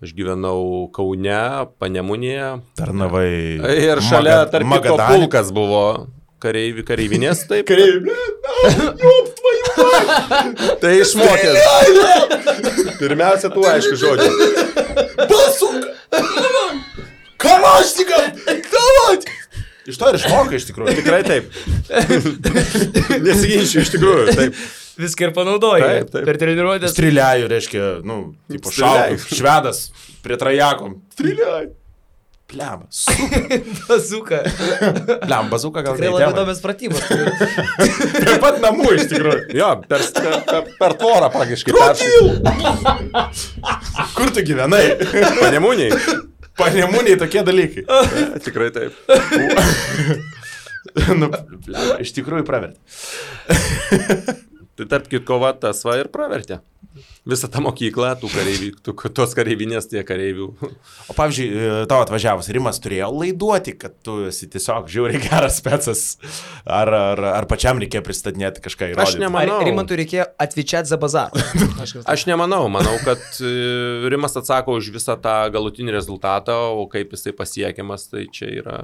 Speaker 3: aš gyvenau Kaune, Panemunėje.
Speaker 1: Tarnavai.
Speaker 3: Ir šalia, tarp kito, pulkas buvo. Kareivinės, taip. Tai išmokęs. Pirmiausia, tu aišku žodžiu.
Speaker 1: Basuka! Kalašnikam! Davot! Iš to ir išmokai iš tikrųjų.
Speaker 3: Tikrai taip. Nesiginčiu iš tikrųjų, taip.
Speaker 2: Viską ir panaudoji.
Speaker 3: Taip.
Speaker 2: Per treniruotės.
Speaker 1: Strieliaju, reiškia, tipo šaukai, švedas prie trajakom. Strieliaju. Pliam,
Speaker 2: bazuka.
Speaker 1: Pliam, bazuka gal
Speaker 2: tikrai labai įdomios pratybos.
Speaker 1: Prie pat namų iš tikrųjų.
Speaker 3: Jo, per tvorą praktiškai peršai.
Speaker 1: Kur tu gyvenai?
Speaker 3: Panemuniai.
Speaker 1: Panemuniai tokie dalykai.
Speaker 3: Tikrai taip.
Speaker 1: Pliam, iš tikrųjų pravertė.
Speaker 3: Tai tarp kitko, tas va ir pravertė. Visą tą mokyklą, tos kareivinės, tie kareivių.
Speaker 1: O pavyzdžiui, tavo atvažiavus Rimas turėjo laiduoti, kad tu esi tiesiog žiauriai geras specas, ar pačiam reikėjo pristatinėti kažką įrodyti?
Speaker 3: Aš nemanau.
Speaker 2: Ar Rimantui reikėjo atvyčiati za bazarą?
Speaker 3: Aš nemanau, manau, kad Rimas atsako už visą tą galutinį rezultatą, o kaip jisai pasiekiamas, tai čia yra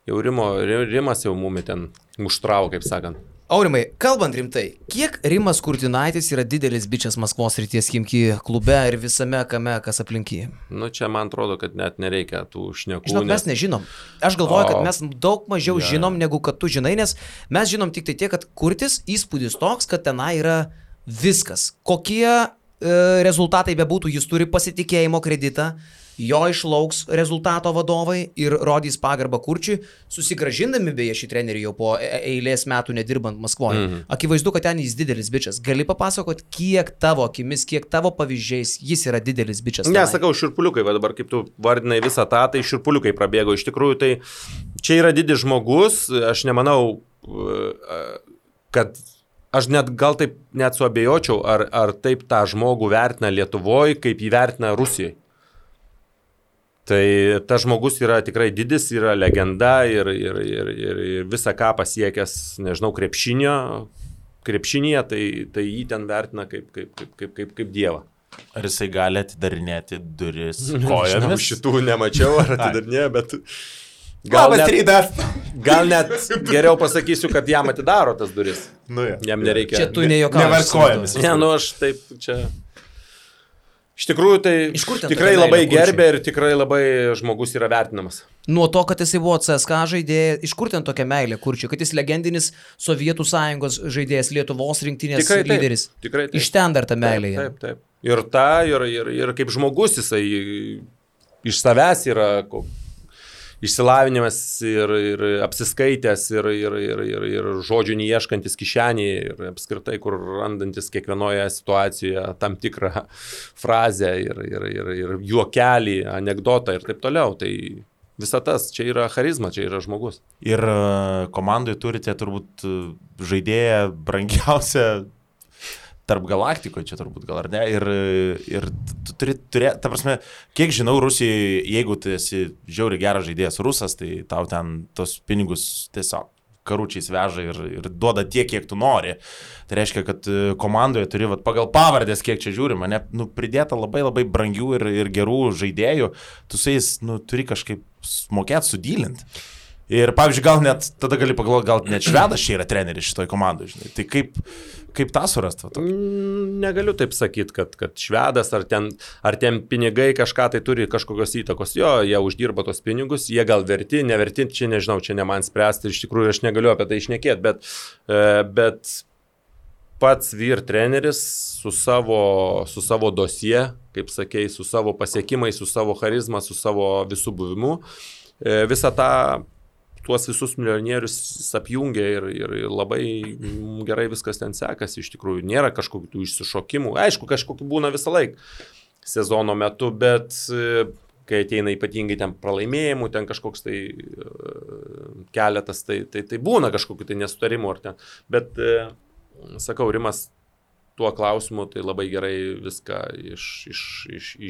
Speaker 3: jau Rimas jau mumi ten muštravo, kaip sakant.
Speaker 2: Aurimai, kalbant rimtai, kiek Rimas Kurtinaitis yra didelis bičias Maskvos Srities Chimki klube ir visame kame, kas aplinkyje?
Speaker 3: Nu, čia man atrodo, kad net nereikia tų šnekų.
Speaker 2: Žinok, mes nežinom. Aš galvoju, kad mes daug mažiau žinom, negu kad tu žinai, nes mes žinom tik tai tiek, kad Kurtis įspūdis toks, kad tenai yra viskas. Kokie rezultatai bebūtų, jis turi pasitikėjimo kreditą, jo išlauks rezultato vadovai ir rodys pagarbą Kurčiui, susigražindami beje šį trenerį jau po eilės metų nedirbant Maskvoje. Akivaizdu, kad ten jis didelis bičias. Gali papasakot, kiek tavo akimis, kiek tavo pavyzdžiais jis yra didelis bičias?
Speaker 3: Ne, sakau, šiurpuliukai, va dabar kaip tu vardinai visą tą, tai šiurpuliukai prabėgo. Iš tikrųjų, tai čia yra didis žmogus, aš nemanau, kad aš gal taip net suabejočiau, ar taip tą žmogų vertina Lietuvoje, kaip jį vertina Rusijoje. Tai tas žmogus yra tikrai didis, yra legenda ir visą ką pasiekęs, nežinau, krepšinėje, tai jį ten vertina kaip dievą.
Speaker 1: Ar jisai gali atidarinėti duris kojomis?
Speaker 3: Šitų nemačiau, ar atidarinė, bet...
Speaker 1: Gal
Speaker 3: net geriau pasakysiu, kad jam atidaro tas duris.
Speaker 1: Nu,
Speaker 3: jam nereikia...
Speaker 2: Čia tu nejokauji.
Speaker 1: Nevarkojomis.
Speaker 3: Ne, nu aš taip čia... Iš tikrųjų, tai tikrai labai gerbė ir tikrai labai žmogus yra vertinamas.
Speaker 2: Nuo to, kad jisai buvo CSKA žaidėjas, iš kur ten tokia meilė Kurčiui, kad jis legendinis Sovietų Sąjungos žaidėjas, Lietuvos rinktinės lyderis.
Speaker 3: Tikrai taip.
Speaker 2: Iš ten dar ta meilė.
Speaker 3: Taip. Ir kaip žmogus jisai iš savęs yra išsilavinimas ir apsiskaitęs ir žodžių neieškantis kišenėje ir apskritai, kur randantis kiekvienoje situacijoje tam tikrą frazę ir juokelį, anekdotą ir taip toliau. Tai visa tas, čia yra charizma, čia yra žmogus.
Speaker 1: Ir komandoje turite turbūt žaidėją brangiausią tarp galaktikoje, čia turbūt gal ar ne, ir tu turi turėti, ta prasme, kiek žinau, Rusijai, jeigu tu esi žiauriai geras žaidėjas rusas, tai tau ten tos pinigus tiesiog karučiais veža ir duoda tiek, kiek tu nori. Tai reiškia, kad komandoje turi pagal pavardės, kiek čia žiūrima, pridėta labai labai brangių ir gerų žaidėjų, tu su jais turi kažkaip mokėti sudylinti. Ir pavyzdžiui, gal net, tada gali pagalvoti, gal net švedas čia yra treneris šitoj komandai, žinai. Tai kaip tą surasti?
Speaker 3: Negaliu taip sakyti, kad švedas ar ten pinigai kažką tai turi kažkokios įtakos. Jo, jie uždirba tos pinigus, jie gal verti, neverti, čia nežinau, čia ne man spręsti, iš tikrųjų aš negaliu apie tai šnekėti, bet pats vyr treneris su savo dosie, kaip sakei, su savo pasiekimais, su savo charizma, su savo visų buvimu, visą tą tuos visus milijonierius apjungia ir labai gerai viskas ten sekasi, iš tikrųjų nėra kažkokių tų išsišokimų, aišku, kažkokių būna visą laiką sezono metu, bet kai ateina ypatingai ten pralaimėjimų, ten kažkoks tai keletas, tai būna kažkokių tai nesutarimų ar ten, bet sakau, Rimas tuo klausimu tai labai gerai viską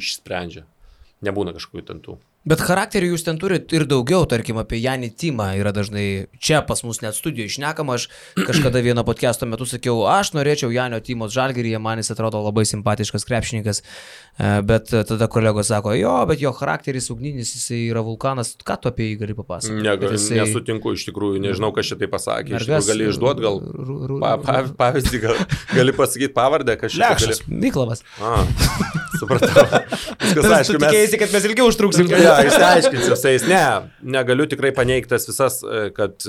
Speaker 3: išsprendžia, nebūna kažkokių ten tų.
Speaker 2: Bet charakterį jūs ten turite ir daugiau, tarkim, apie Janį Timą yra dažnai čia pas mus net studijoje išnekama, aš kažkada vieno podcast'o metu sakiau, aš norėčiau Janio Timos Žalgiryje, man jis atrodo labai simpatiškas krepšininkas, bet tada kolegos sako, jo, bet jo charakteris ugninis, jisai yra vulkanas, ką tu apie jį gali papasakoti?
Speaker 3: Nesutinku, iš tikrųjų, nežinau, kas šitai pasakė, iš tikrųjų gali išduoti gal pavyzdį, gali pasakyti pavardę, kas šitai gali.
Speaker 2: Miklavas.
Speaker 3: Supratau. Viskas aišku,
Speaker 2: mes... Tikėsi, kad mes ilgiau užtruksim.
Speaker 3: Išsiaiškinsiu visais. Negaliu tikrai paneigtas visas, kad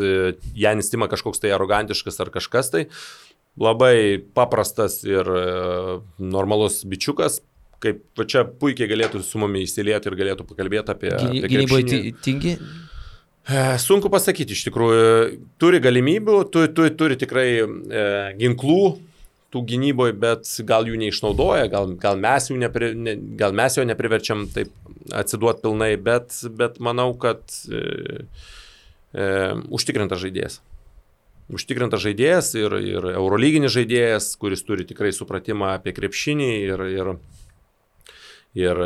Speaker 3: Janis Tima kažkoks tai arogantiškas ar kažkas tai. Labai paprastas ir normalus bičiukas, kaip čia puikiai galėtų su mumis įsilieti ir galėtų pakalbėti apie
Speaker 2: gynyboje tingi?
Speaker 3: Sunku pasakyti, iš tikrųjų. Turi galimybių, turi tikrai ginklų tų gynyboje, bet gal jų neišnaudoja, gal mes jo nepriverčiam taip atsiduoti pilnai, bet manau, kad užtikrintas žaidėjas. Užtikrintas žaidėjas ir eurolyginis žaidėjas, kuris turi tikrai supratimą apie krepšinį ir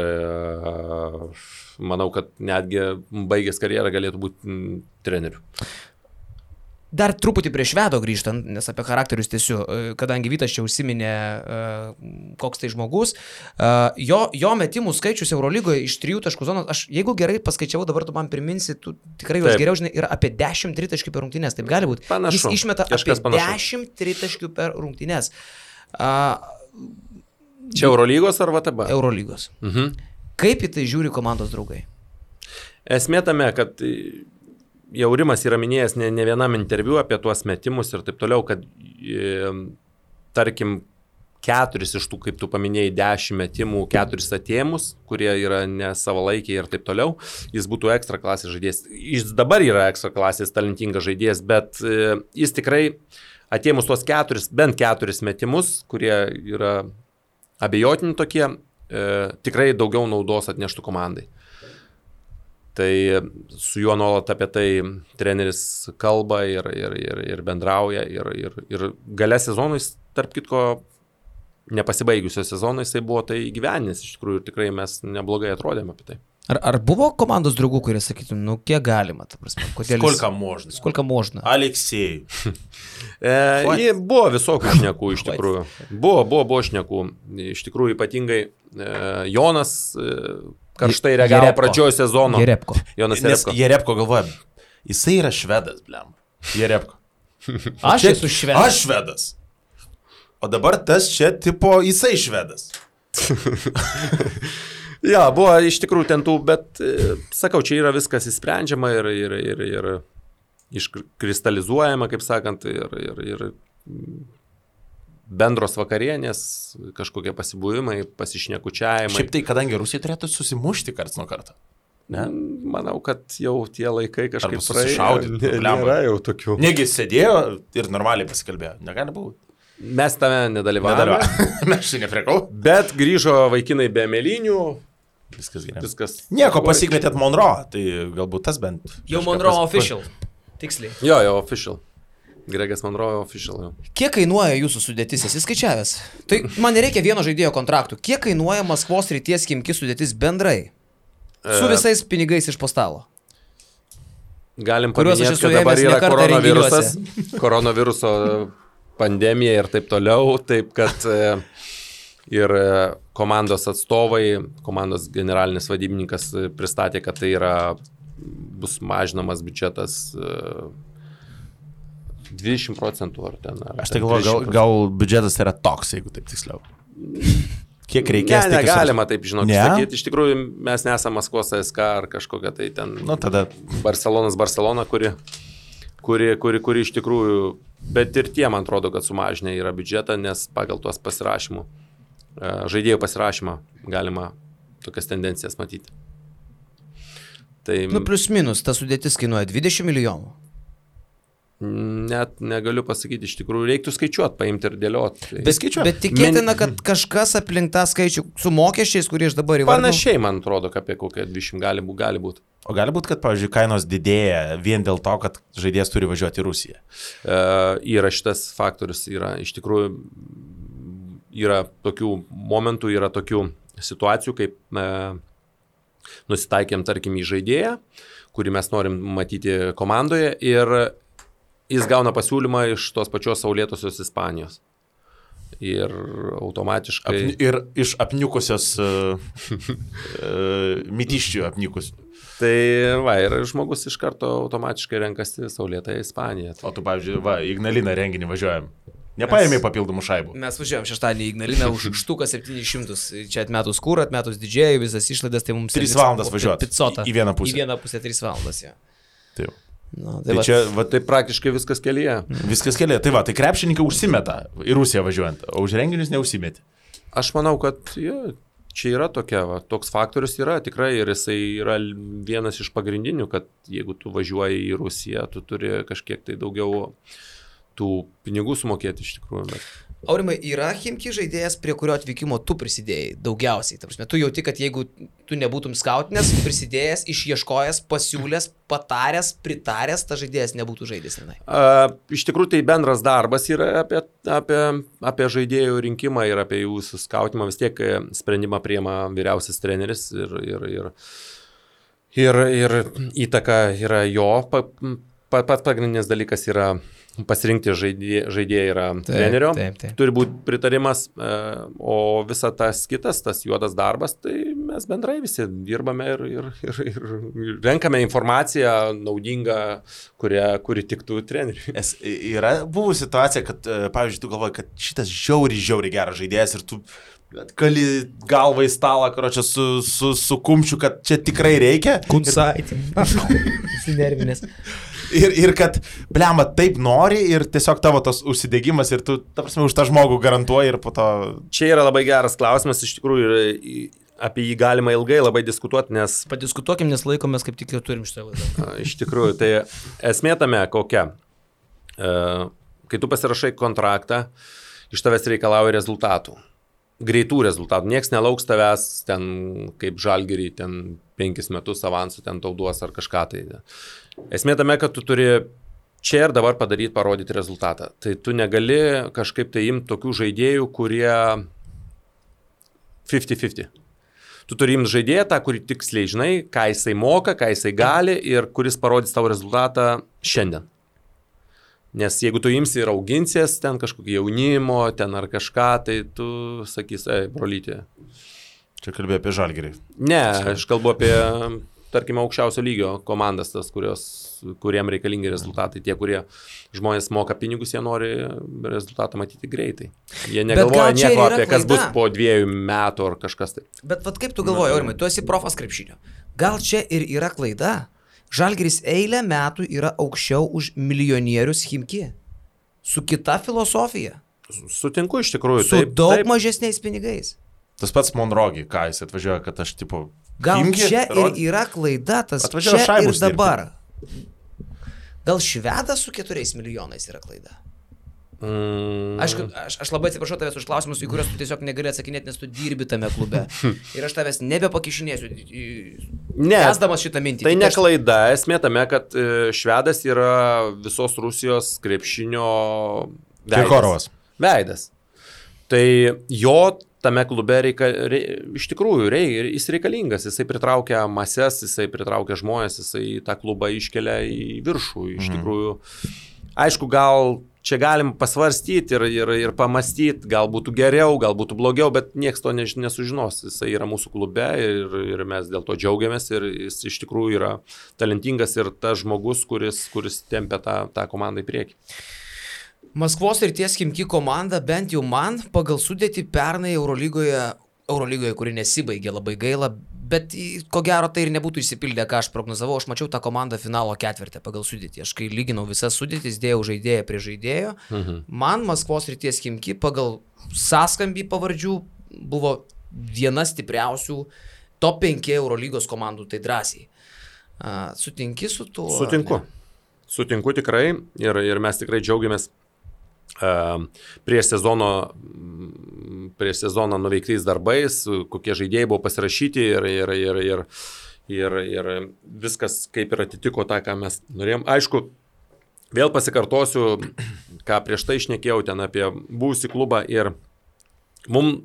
Speaker 3: manau, kad netgi baigęs karjerą galėtų būti treneriu.
Speaker 2: Dar truputį prie Švedo grįžtant, nes apie charakterius tiesiu, kadangi Vytas čia užsiminė, koks tai žmogus, jo metimų skaičius Eurolygoje iš 3 taškų zonos, aš jeigu gerai paskaičiavau, dabar tu man priminsi, tu tikrai juos geriau žinai, yra apie 10 tritaškių per rungtynės, taip gali būti.
Speaker 3: Panašu.
Speaker 2: Jis išmeta apie 10 tritaškių per rungtynės.
Speaker 3: Čia Eurolygos ar VTB?
Speaker 2: Eurolygos. Kaip į tai žiūri komandos draugai?
Speaker 3: Esmė tame, kad jau Rimas yra minėjęs ne vienam interviu apie tuos metimus ir taip toliau, kad tarkim 4 iš tų, kaip tu paminėjai, 10 metimų, 4 atėmus, kurie yra nesavalaikiai ir taip toliau, jis būtų ekstra klasės žaidėjas. Jis dabar yra ekstra klasės talentingas žaidėjas, bet jis tikrai atėmus tuos 4, bent 4 metimus, kurie yra abejotini tokie, tikrai daugiau naudos atneštų komandai. Tai su juo nuolat apie tai treneris kalba ir bendrauja ir gale sezonui, tarp kitko, nepasibaigusio sezono jisai buvo tai įgyvendinęs, iš tikrųjų tikrai mes neblogai atrodėme apie tai.
Speaker 2: Ar buvo komandos draugų, kurie sakytų, nu kiek galima, ta prasme, kodėl
Speaker 1: Skolka можно. Aleksėjai.
Speaker 3: Buvo visokių šnekų iš tikrųjų. Buvo šnekų. Iš tikrųjų ypatingai Jonas karštai reagavo pradžioje sezono.
Speaker 2: Jerepko.
Speaker 3: Jonas
Speaker 1: Nes Jerepko galvoja, jisai yra švedas, blem. Jerepko.
Speaker 2: Aš esu švedas.
Speaker 1: Aš švedas. O dabar tas čia tipo jisai švedas.
Speaker 3: Ja, buvo iš tikrųjų ten tų, bet sakau, čia yra viskas įsprendžiama ir iškristalizuojama, kaip sakant, ir bendros vakarienės, kažkokie pasibuvimai, pasišnekučiavimai.
Speaker 1: Šiaip tai, kadangi Rusija turėtų susimušti karts nuo karto. Ne?
Speaker 3: Manau, kad jau tie laikai kažkaip
Speaker 1: susišaudyti.
Speaker 3: Nėra jau tokių.
Speaker 1: Negi sėdėjo ir normaliai pasikalbėjo. Negali būti.
Speaker 3: Mes tame nedalyvavome.
Speaker 1: Mes čia neprekau.
Speaker 3: Bet grįžo vaikinai be mėlynių.
Speaker 1: Viskas gerai.
Speaker 3: Viskas.
Speaker 1: Nieko, pasikvietėt Monroe, tai galbūt tas bent.
Speaker 2: Jau Monroe official. Tiksliai.
Speaker 3: Jo, official. Gregas Monroe official. Jau.
Speaker 2: Kiek kainuoja jūsų sudėtis? Esi skaičiavęs? Tai man nereikia vieno žaidėjo kontraktų. Kiek kainuoja Maskvos Srities Chimki sudėtis bendrai? Su visais pinigais iš po stalo.
Speaker 3: Galim paminėti, kad dabar yra koronaviruso pandemija ir taip toliau, taip kad ir komandos atstovai, komandos generalinis vadybininkas pristatė, kad tai bus mažinamas biudžetas 20% ar ten.
Speaker 1: Aš tai galvoju, gal biudžetas yra toks, jeigu taip tiksliau. Kiek reikės?
Speaker 3: Negalima taip, sakyti. Iš tikrųjų, mes nesame Maskvos SK ar kažkokia tai ten
Speaker 1: tada
Speaker 3: Barcelona, kuri iš tikrųjų, bet ir tie, man atrodo, kad sumažinę yra biudžetą, nes pagal tuos pasirašymų, žaidėjų pasirašymą galima tokias tendencijas matyti. Tai,
Speaker 2: plius minus, ta sudėtis kainuoja 20 milijonų.
Speaker 3: Net negaliu pasakyti, iš tikrųjų reiktų skaičiuoti, paimti ir dėlioti.
Speaker 2: Bet tikėtina, kad kažkas aplink tą skaičių su mokesčiais, kurie aš dabar įvardinu.
Speaker 3: Panašiai, man atrodo, apie kokią 20 gali būti.
Speaker 1: O gali būti, kad, pavyzdžiui, kainos didėja vien dėl to, kad žaidėjas turi važiuoti į Rusiją?
Speaker 3: Yra šitas faktorius, iš tikrųjų yra tokių momentų, yra tokių situacijų, kaip nusitaikėm, tarkim, į žaidėją, kurį mes norim matyti komandoje ir jis gauna pasiūlymą iš tos pačios saulėtosios Ispanijos. Ir automatiškai...
Speaker 1: Ir iš apniukusios mitiščių apniukusių.
Speaker 3: Tai ir žmogus iš karto automatiškai renkasi saulėtąją Ispaniją.
Speaker 1: O tu, pavyzdžiui, Ignaliną renginį važiuojam. Nepaėmė papildomų šaibų.
Speaker 2: Mes važiuojam šeštadienį į Ignaliną už štuką 700. Čia atmetus kūrą, atmetus didžiai, visas išlaidas, tai mums...
Speaker 1: 3 valandas važiuoti. Į vieną pusę.
Speaker 2: Į vieną pusę 3 valandas, jo.
Speaker 1: Taip.
Speaker 3: Tai čia, tai praktiškai viskas kelyje.
Speaker 1: Viskas kelyje. Tai tai krepšininkai užsimeta į Rusiją važiuojant, o už renginius neužsimeti.
Speaker 3: Aš manau, kad čia yra toks faktorius yra tikrai ir jisai yra vienas iš pagrindinių, kad jeigu tu važiuoji į Rusiją, tu turi kažkiek tai daugiau tų pinigų sumokėti iš tikrųjų.
Speaker 2: Aurimai, yra Chimki žaidėjas, prie kurio atvykimo tu prisidėjai daugiausiai? Ta prasme, tu jauti, kad jeigu tu nebūtum skautinės, prisidėjęs, išieškojęs, pasiūlęs, pataręs, pritaręs, ta žaidėjas nebūtų žaidęs.
Speaker 3: Iš tikrųjų, tai bendras darbas yra apie žaidėjų rinkimą ir apie jų skautimą. Vis tiek sprendimą priima vyriausias treneris ir įtaka yra jo pats pagrindinis dalykas yra pasirinkti žaidėją yra trenerio, turi būti pritarimas, o visa tas kitas, tas juodas darbas, tai mes bendrai visi dirbame ir renkame informaciją naudingą, kuri tiktų treneriui.
Speaker 1: Yra buvo situacija, kad, pavyzdžiui, tu galvoji, kad šitas žiauriai geras žaidėjas ir tu kali galvą į stalą, karočią, su kumščiu, kad čia tikrai reikia.
Speaker 2: Kunsaitį. Sinervinės.
Speaker 1: Ir kad, blema, taip nori ir tiesiog tavo tas užsidegimas ir tu, ta prasme, už tą žmogų garantuoji ir po to...
Speaker 3: Čia yra labai geras klausimas, iš tikrųjų, apie jį galima ilgai labai diskutuoti, nes...
Speaker 2: Padiskutuokim, nes laikomės kaip tik ir turim šitą laidą.
Speaker 3: Iš tikrųjų, tai esmė tame kokia. Kai tu pasirašai kontraktą, iš tavęs reikalauja rezultatų. Greitų rezultatų. Niekas nelauks tavęs ten kaip Žalgirį, ten 5 metus avansų ten tau duos ar kažką tai. Esmė tame, kad tu turi čia ir dabar parodyti rezultatą. Tai tu negali kažkaip tai imti tokių žaidėjų, kurie 50-50. Tu turi imti žaidėją tą, kurį tiksliai žinai, ką jisai moka, ką jisai gali ir kuris parodys tavo rezultatą šiandien. Nes jeigu tu imsi ir auginsies ten kažkokį jaunimo, ten ar kažką, tai tu sakys, brolytė.
Speaker 1: Čia kalbėjai apie Žalgirį.
Speaker 3: Ne, aš kalbu apie, tarkime, aukščiausio lygio komandas, tas, kuriem reikalingi rezultatai. Tie, kurie žmonės moka pinigus, jie nori rezultatą matyti greitai. Jie negalvoja nieko apie kas bus po 2 metų ar kažkas tai.
Speaker 2: Bet vat kaip tu galvoji, Aurimai, tu esi profas krepšinio. Gal čia ir yra klaida? Žalgiris eilę metų yra aukščiau už milijonierius Chimki. Su kita filosofija.
Speaker 3: Sutinku iš tikrųjų.
Speaker 2: Su daug mažesniais pinigais.
Speaker 1: Tas pats Monrogi, ką jis atvažiuoja, kad aš tipo...
Speaker 2: Gal Chimki, čia ir yra klaida, tas čia ir dabar. Gal Švedas su 4 milijonais yra klaida? Aišku, aš labai atsiprašau tavęs už klausimus, į kuriuos tu tiesiog negali atsakinėti, nes tu dirbi tame klube. Ir aš tavęs nebepakišinėsiu, esdamas šitą mintį.
Speaker 3: Tai ne klaida, esmė tame, kad Švedas yra visos Rusijos krepšinio veidas. Tai jo tame klube iš tikrųjų jis reikalingas, jisai pritraukia mases, jisai pritraukia žmonės, jisai tą klubą iškelia į viršų. Iš tikrųjų, aišku, gal čia galim pasvarstyti ir pamastyti, gal būtų geriau, gal būtų blogiau, bet niekas to nesužinos. Jisai yra mūsų klube ir mes dėl to džiaugiamės ir jis iš tikrųjų yra talentingas ir tas žmogus, kuris tempia tą komandą į priekį.
Speaker 2: Maskvos Srities Chimki komanda, bent jau man, pagal sudėtį pernai Eurolygoje, kuri nesibaigė, labai gaila, bet ko gero tai ir nebūtų išsipildę, ką aš prognozavau. Aš mačiau tą komandą finalo ketvirtę pagal sudėtį. Aš kai lyginau visas sudėtis, dėjau žaidėją prie žaidėjo. Man Maskvos Srities Chimki pagal sąskambį pavardžių buvo viena stipriausių top 5 Eurolygos komandų, tai drąsiai. Sutinki su tuo?
Speaker 3: Sutinku tikrai ir mes tikrai džiaugiamės prieš sezoną nuveiktais darbais, kokie žaidėjai buvo pasirašyti ir viskas kaip ir atitiko tą, ką mes norėjom. Aišku, vėl pasikartosiu, ką prieš tai šnekėjau ten apie buvusį klubą ir mums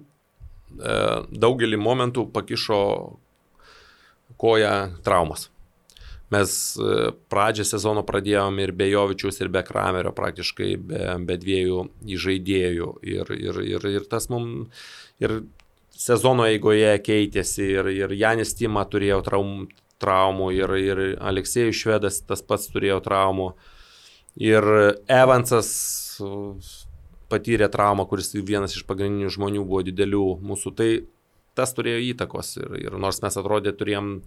Speaker 3: daugelį momentų pakišo koją traumas. Mes pradžią sezono pradėjom ir be Jovičiaus, ir be Kramerio, praktiškai be 2 žaidėjų. Ir tas mums ir sezono eigoje keitėsi, ir Janis Tima turėjo traumų, ir Aleksėjus Švedas tas pats turėjo traumų. Ir Evansas patyrė traumą, kuris vienas iš pagrindinių žmonių buvo didelių mūsų. Tai tas turėjo įtakos. Ir nors mes atrodė turėjom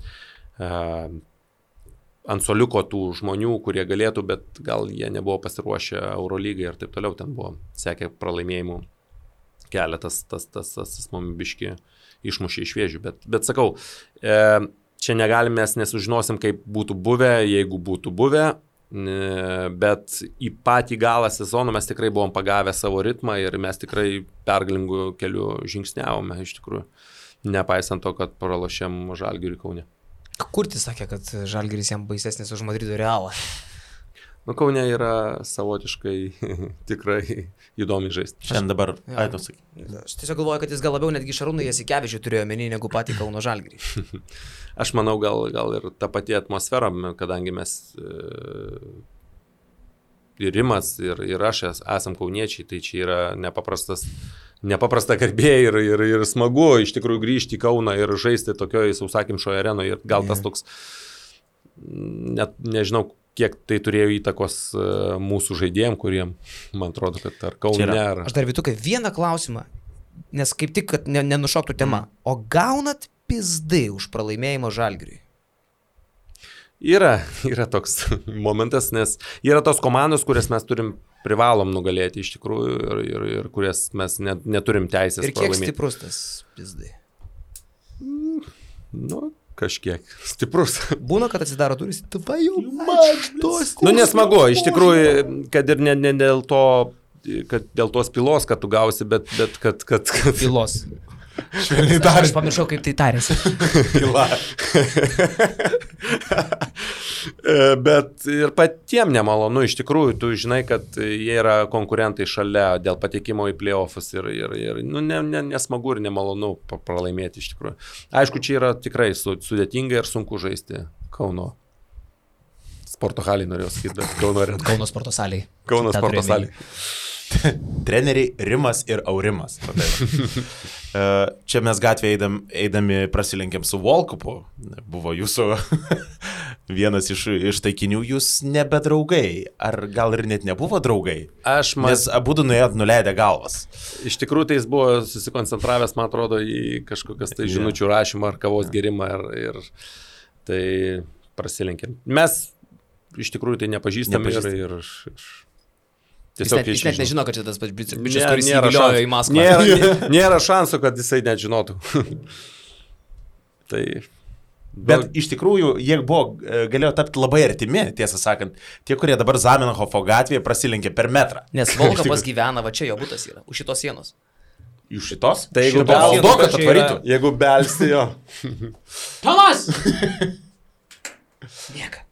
Speaker 3: ant soliuko tų žmonių, kurie galėtų, bet gal jie nebuvo pasiruošę Eurolygai ir taip toliau, ten buvo sekė pralaimėjimų keletas, tas mums biški išmušė iš vėžių, bet sakau, čia negalim, mes nesužinosim, kaip būtų buvę, jeigu būtų buvę, bet į patį galą sezono mes tikrai buvom pagavę savo ritmą ir mes tikrai pergalingų kelių žingsniavome, iš tikrųjų, nepaisant to, kad pralošėm Žalgiriui Kaune.
Speaker 2: Kurtis sakė, kad Žalgiris jam baisesnis už Madrido Realą.
Speaker 3: Kaune yra savotiškai tikrai įdomi žaisti.
Speaker 1: Šiandien dabar, tu sakai.
Speaker 2: Aš tiesiog galvoju, kad jis gal labiau netgi Šarūną Jasikevičių turėjo menį negu patį Kauno Žalgirį.
Speaker 3: Aš manau, gal ir ta pati atmosfera, kadangi mes ir Rimas, ir aš esam kauniečiai, tai čia yra nepaprasta garbė ir smagu iš tikrųjų grįžti į Kauną ir žaisti tokioje sausakimšoje arenoje. Ir gal tas toks, net nežinau, kiek tai turėjo įtakos mūsų žaidėjim, kuriem, man atrodo, kad ar Kaune, ar...
Speaker 2: Aš dar Vytukai vieną klausimą, nes kaip tik, kad nenušoktų tema. O gaunat pizdai už pralaimėjimą Žalgiriui?
Speaker 3: Yra toks momentas, nes yra tos komandos, kurias mes privalom nugalėti iš tikrųjų ir kurias mes neturim teisės pralaimėti. Ir kiek
Speaker 2: stiprus tas pizdai?
Speaker 3: Kažkiek stiprus.
Speaker 2: Būna, kad atsidaro duris,
Speaker 3: nesmagu, iš tikrųjų, kad ir ne dėl to, kad dėl tos pilos, kad tu gausi, bet kad...
Speaker 2: Pilos.
Speaker 1: Švelniai tariant.
Speaker 2: Aš pamiršau, kaip tai tarėsi.
Speaker 1: Pila.
Speaker 3: Bet ir patiem nemalonu, iš tikrųjų, tu žinai, kad jie yra konkurentai šalia dėl patekimo į playoffus ir nesmagu ir nemalonu pralaimėti iš tikrųjų. Aišku, čia yra tikrai sudėtinga ir sunku žaisti Kauno sporto halį, norėjau sakyti, bet
Speaker 2: Kauno sporto salėj.
Speaker 3: Kauno sporto salėj.
Speaker 1: Treneriai Rimas ir Aurimas. Čia mes gatvėje eidami prasilenkėm su Volkupu. Buvo jūsų vienas iš taikinių, jūs nebedraugai. Ar gal ir net nebuvo draugai? Nes abudu nuėjot nuleidę galvas.
Speaker 3: Iš tikrųjų, tai jis buvo susikoncentravęs, man atrodo, į kažkokias tai žinučių rašymą ar kavos gerimą ir tai prasilenkėm. Mes iš tikrųjų tai nepažįstame ir
Speaker 2: Jis net nežino, kad čia tas pats bičias, kuris įviliojo į Maskvą.
Speaker 3: Nėra šansų, kad jisai net žinotų.
Speaker 1: Bet iš tikrųjų, jie galėjo tapti labai artimi, tiesą sakant. Tie, kurie dabar Zamenhofo gatvėje prasilenkė per metrą.
Speaker 2: Nes Volkapas gyvena, va čia jo butas yra, už šitos sienos.
Speaker 1: Iš šitos?
Speaker 3: Tai jeigu belsti jo.
Speaker 2: Tomas! Miega.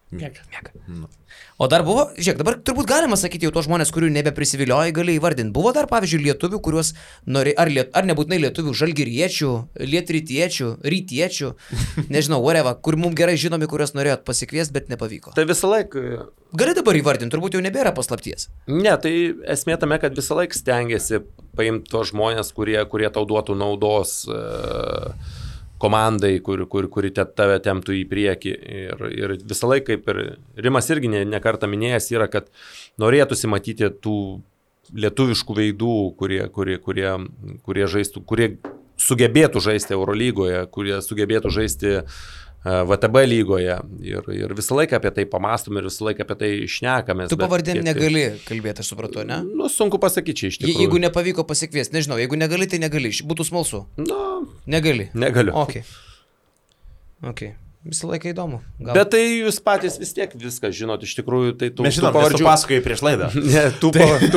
Speaker 2: O dar buvo, žiūrėk, dabar turbūt galima sakyti jau tos žmonės, kurių nebeprisiviliojai, gali įvardinti. Buvo dar, pavyzdžiui, lietuvių, kuriuos ar nebūtinai lietuvių, žalgiriečių, lietrytiečių, rytiečių, nežinau, whatever, kur mums gerai žinomi, kuriuos norėjot pasikviesti, bet nepavyko.
Speaker 3: Tai visą laiką...
Speaker 2: Gali dabar įvardinti, turbūt jau nebėra paslapties.
Speaker 3: Ne, tai esmė tame, kad visą laiką stengiasi paimti tos žmonės, kurie tau duotų naudos komandai, kuri tave temptų į priekį. Ir visą laiką, kaip ir Rimas irgi nekartą minėjęs, yra, kad norėtųsi matyti tų lietuviškų veidų, kurie žaistų, kurie sugebėtų žaisti Eurolygoje, kurie sugebėtų žaisti VTB lygoje. Ir visą laiką apie tai pamąstom ir visą laiką apie tai šnekame.
Speaker 2: Tu pavardėm negali kalbėti, aš supratau, ne?
Speaker 3: Sunku pasakyti čia iš tikrųjų.
Speaker 2: Jeigu nepavyko pasikviesti, nežinau, jeigu negali, tai negali. Būtų smalsu. Negali.
Speaker 3: Negaliu.
Speaker 2: Ok. Visą laiką įdomu.
Speaker 3: Bet tai jūs patys vis tiek viską žinot, iš tikrųjų, tai tų
Speaker 1: pavardžių pasakoji prieš laidą.
Speaker 3: Ne, tų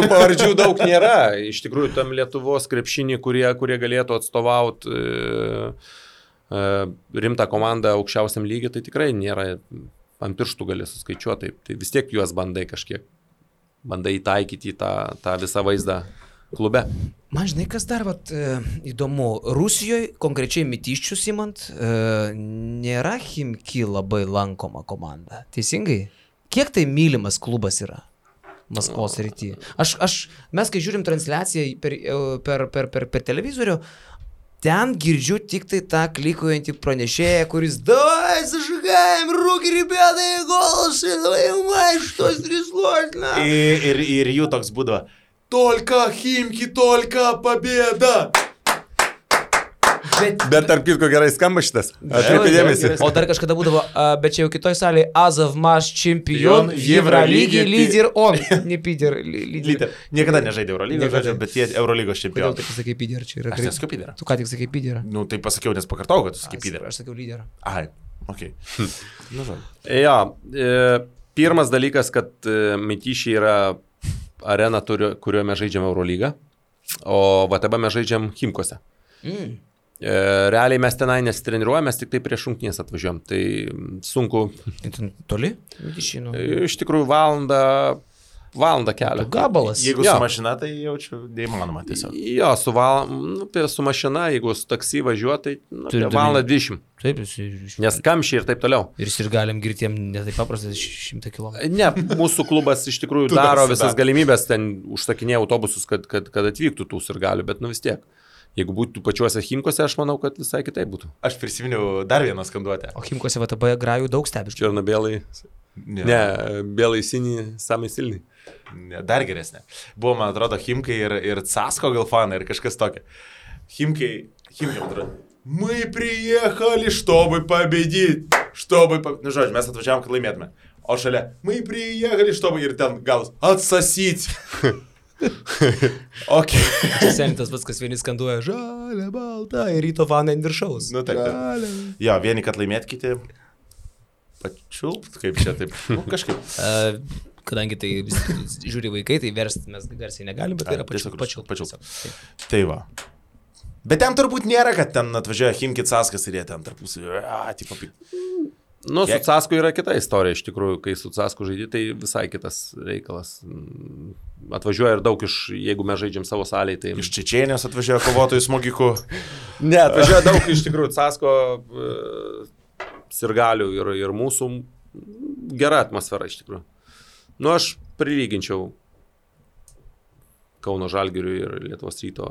Speaker 3: pavardžių daug nėra. Iš tikrųjų, tam Lietuvos krepšinį, kurie galėtų atstovauti rimtą komandą aukščiausiam lygiui, tai tikrai nėra, ant pirštų gali suskaičiuoti, tai vis tiek juos bandai įtaikyti į tą visą vaizdą klube.
Speaker 2: Man žinai, kas dar įdomu, Rusijoje, konkrečiai Mytiščius imant, nėra Chimki labai lankoma komanda. Teisingai? Kiek tai mylimas klubas yra Maskvos srityje? Mes, kai žiūrim transliaciją per televizorių, ten girdžiu tik tai tą klikuojantį pranešėją, kuris давай зажигаем руки, ребята, и голос, и давай, что стряслось,
Speaker 1: Ir jų toks būdavo, только Химки, только победа.
Speaker 3: Bet tarp kitko gerai skamba šitas. Atkreipė dėmesį.
Speaker 2: O dar kažkada būdavo, bet čia jau kitoj salėje, Azov Maš čempion, Евролиги, лидер он. Ne Pider,
Speaker 1: lyder. Niekada nežaidė Eurolygos, bet jie Eurolygos čempionai.
Speaker 2: Kodėl tu sakai Pider, čia yra?
Speaker 1: Aš nesakiau Pider.
Speaker 2: Tu ką tik sakai Pider?
Speaker 1: Nu, tai pasakiau, nes pakartau, kad tu sakai Pider.
Speaker 2: Aš sakiau lyder.
Speaker 1: Ai, okei.
Speaker 3: Jo, pirmas dalykas, kad Mytišiai yra arena, kurioje mes žaidžiam Eurolygą, o VTB mes žaidžiam Chimkose. Realiai mes tenai nesitreniruojame, mes tik tai prieš rungtynes atvažiuojam. Tai sunku.
Speaker 2: Toli?
Speaker 3: Iš tikrųjų valandą Valandą kelio.
Speaker 2: Gabalas.
Speaker 1: Jeigu su mašina, tai jaučiu neįmanoma tiesiog.
Speaker 3: Jo, su mašina, jeigu su taksi važiuoja, tai valandą 20.
Speaker 2: Taip,
Speaker 3: Nes kamščiai ir taip toliau.
Speaker 2: Ir galim girtiem netai paprastai 100 km.
Speaker 3: Ne, mūsų klubas iš tikrųjų daro visas galimybės, ten užsakinėja autobusus, kad atvyktų tų ir galių, bet vis tiek. Jeigu būtų pačiuose Chimkose, aš manau, kad visai kitaip būtų.
Speaker 1: Aš prisiminiau dar vieną skanduotę.
Speaker 2: O Chimkose VTB grajų daug stebi.
Speaker 3: Černobėlai. Ne, bėlai sini, samai silni.
Speaker 1: Ne, dar geresnė. Buvo, man atrodo, Chimkai ir Casko gal fanai ir kažkas tokia. Chimkai, atrodo, мы приехали, чтобы победить. Nu, žodžiu, mes atvažiavom, kad laimėtume. O šalia, мы приехали, чтобы ir ten galas atsasyti. Okay.
Speaker 2: Senitas pats, kas vieni skanduoja žalia, balta ir ryto fanai ant viršaus.
Speaker 1: Nu, taip. Jo, vieni, kad laimėt, kiti pačiulpt, kaip čia taip. Nu, kažkaip.
Speaker 2: Kadangi tai žiūri vaikai, tai versti mes garsiai negalim, bet tai yra pačiulpt.
Speaker 1: Tai va. Bet ten turbūt nėra, kad ten atvažiuoja Chimki Caskas ir jie ten tarpusai.
Speaker 3: Nu, su Casku yra kita istorija, iš tikrųjų, kai su Casku žaidži, tai visai kitas reikalas. Atvažiuoja ir daug jeigu mes žaidžiam savo salėje, tai...
Speaker 1: Iš Čečėnijos atvažiuoja kovotojų smogikų.
Speaker 3: Ne, atvažiuoja daug iš tikrųjų Casko sirgalių ir mūsų gera atmosfera iš tikrųjų. Nu, aš prilyginčiau Kauno Žalgiriui ir Lietuvos Ryto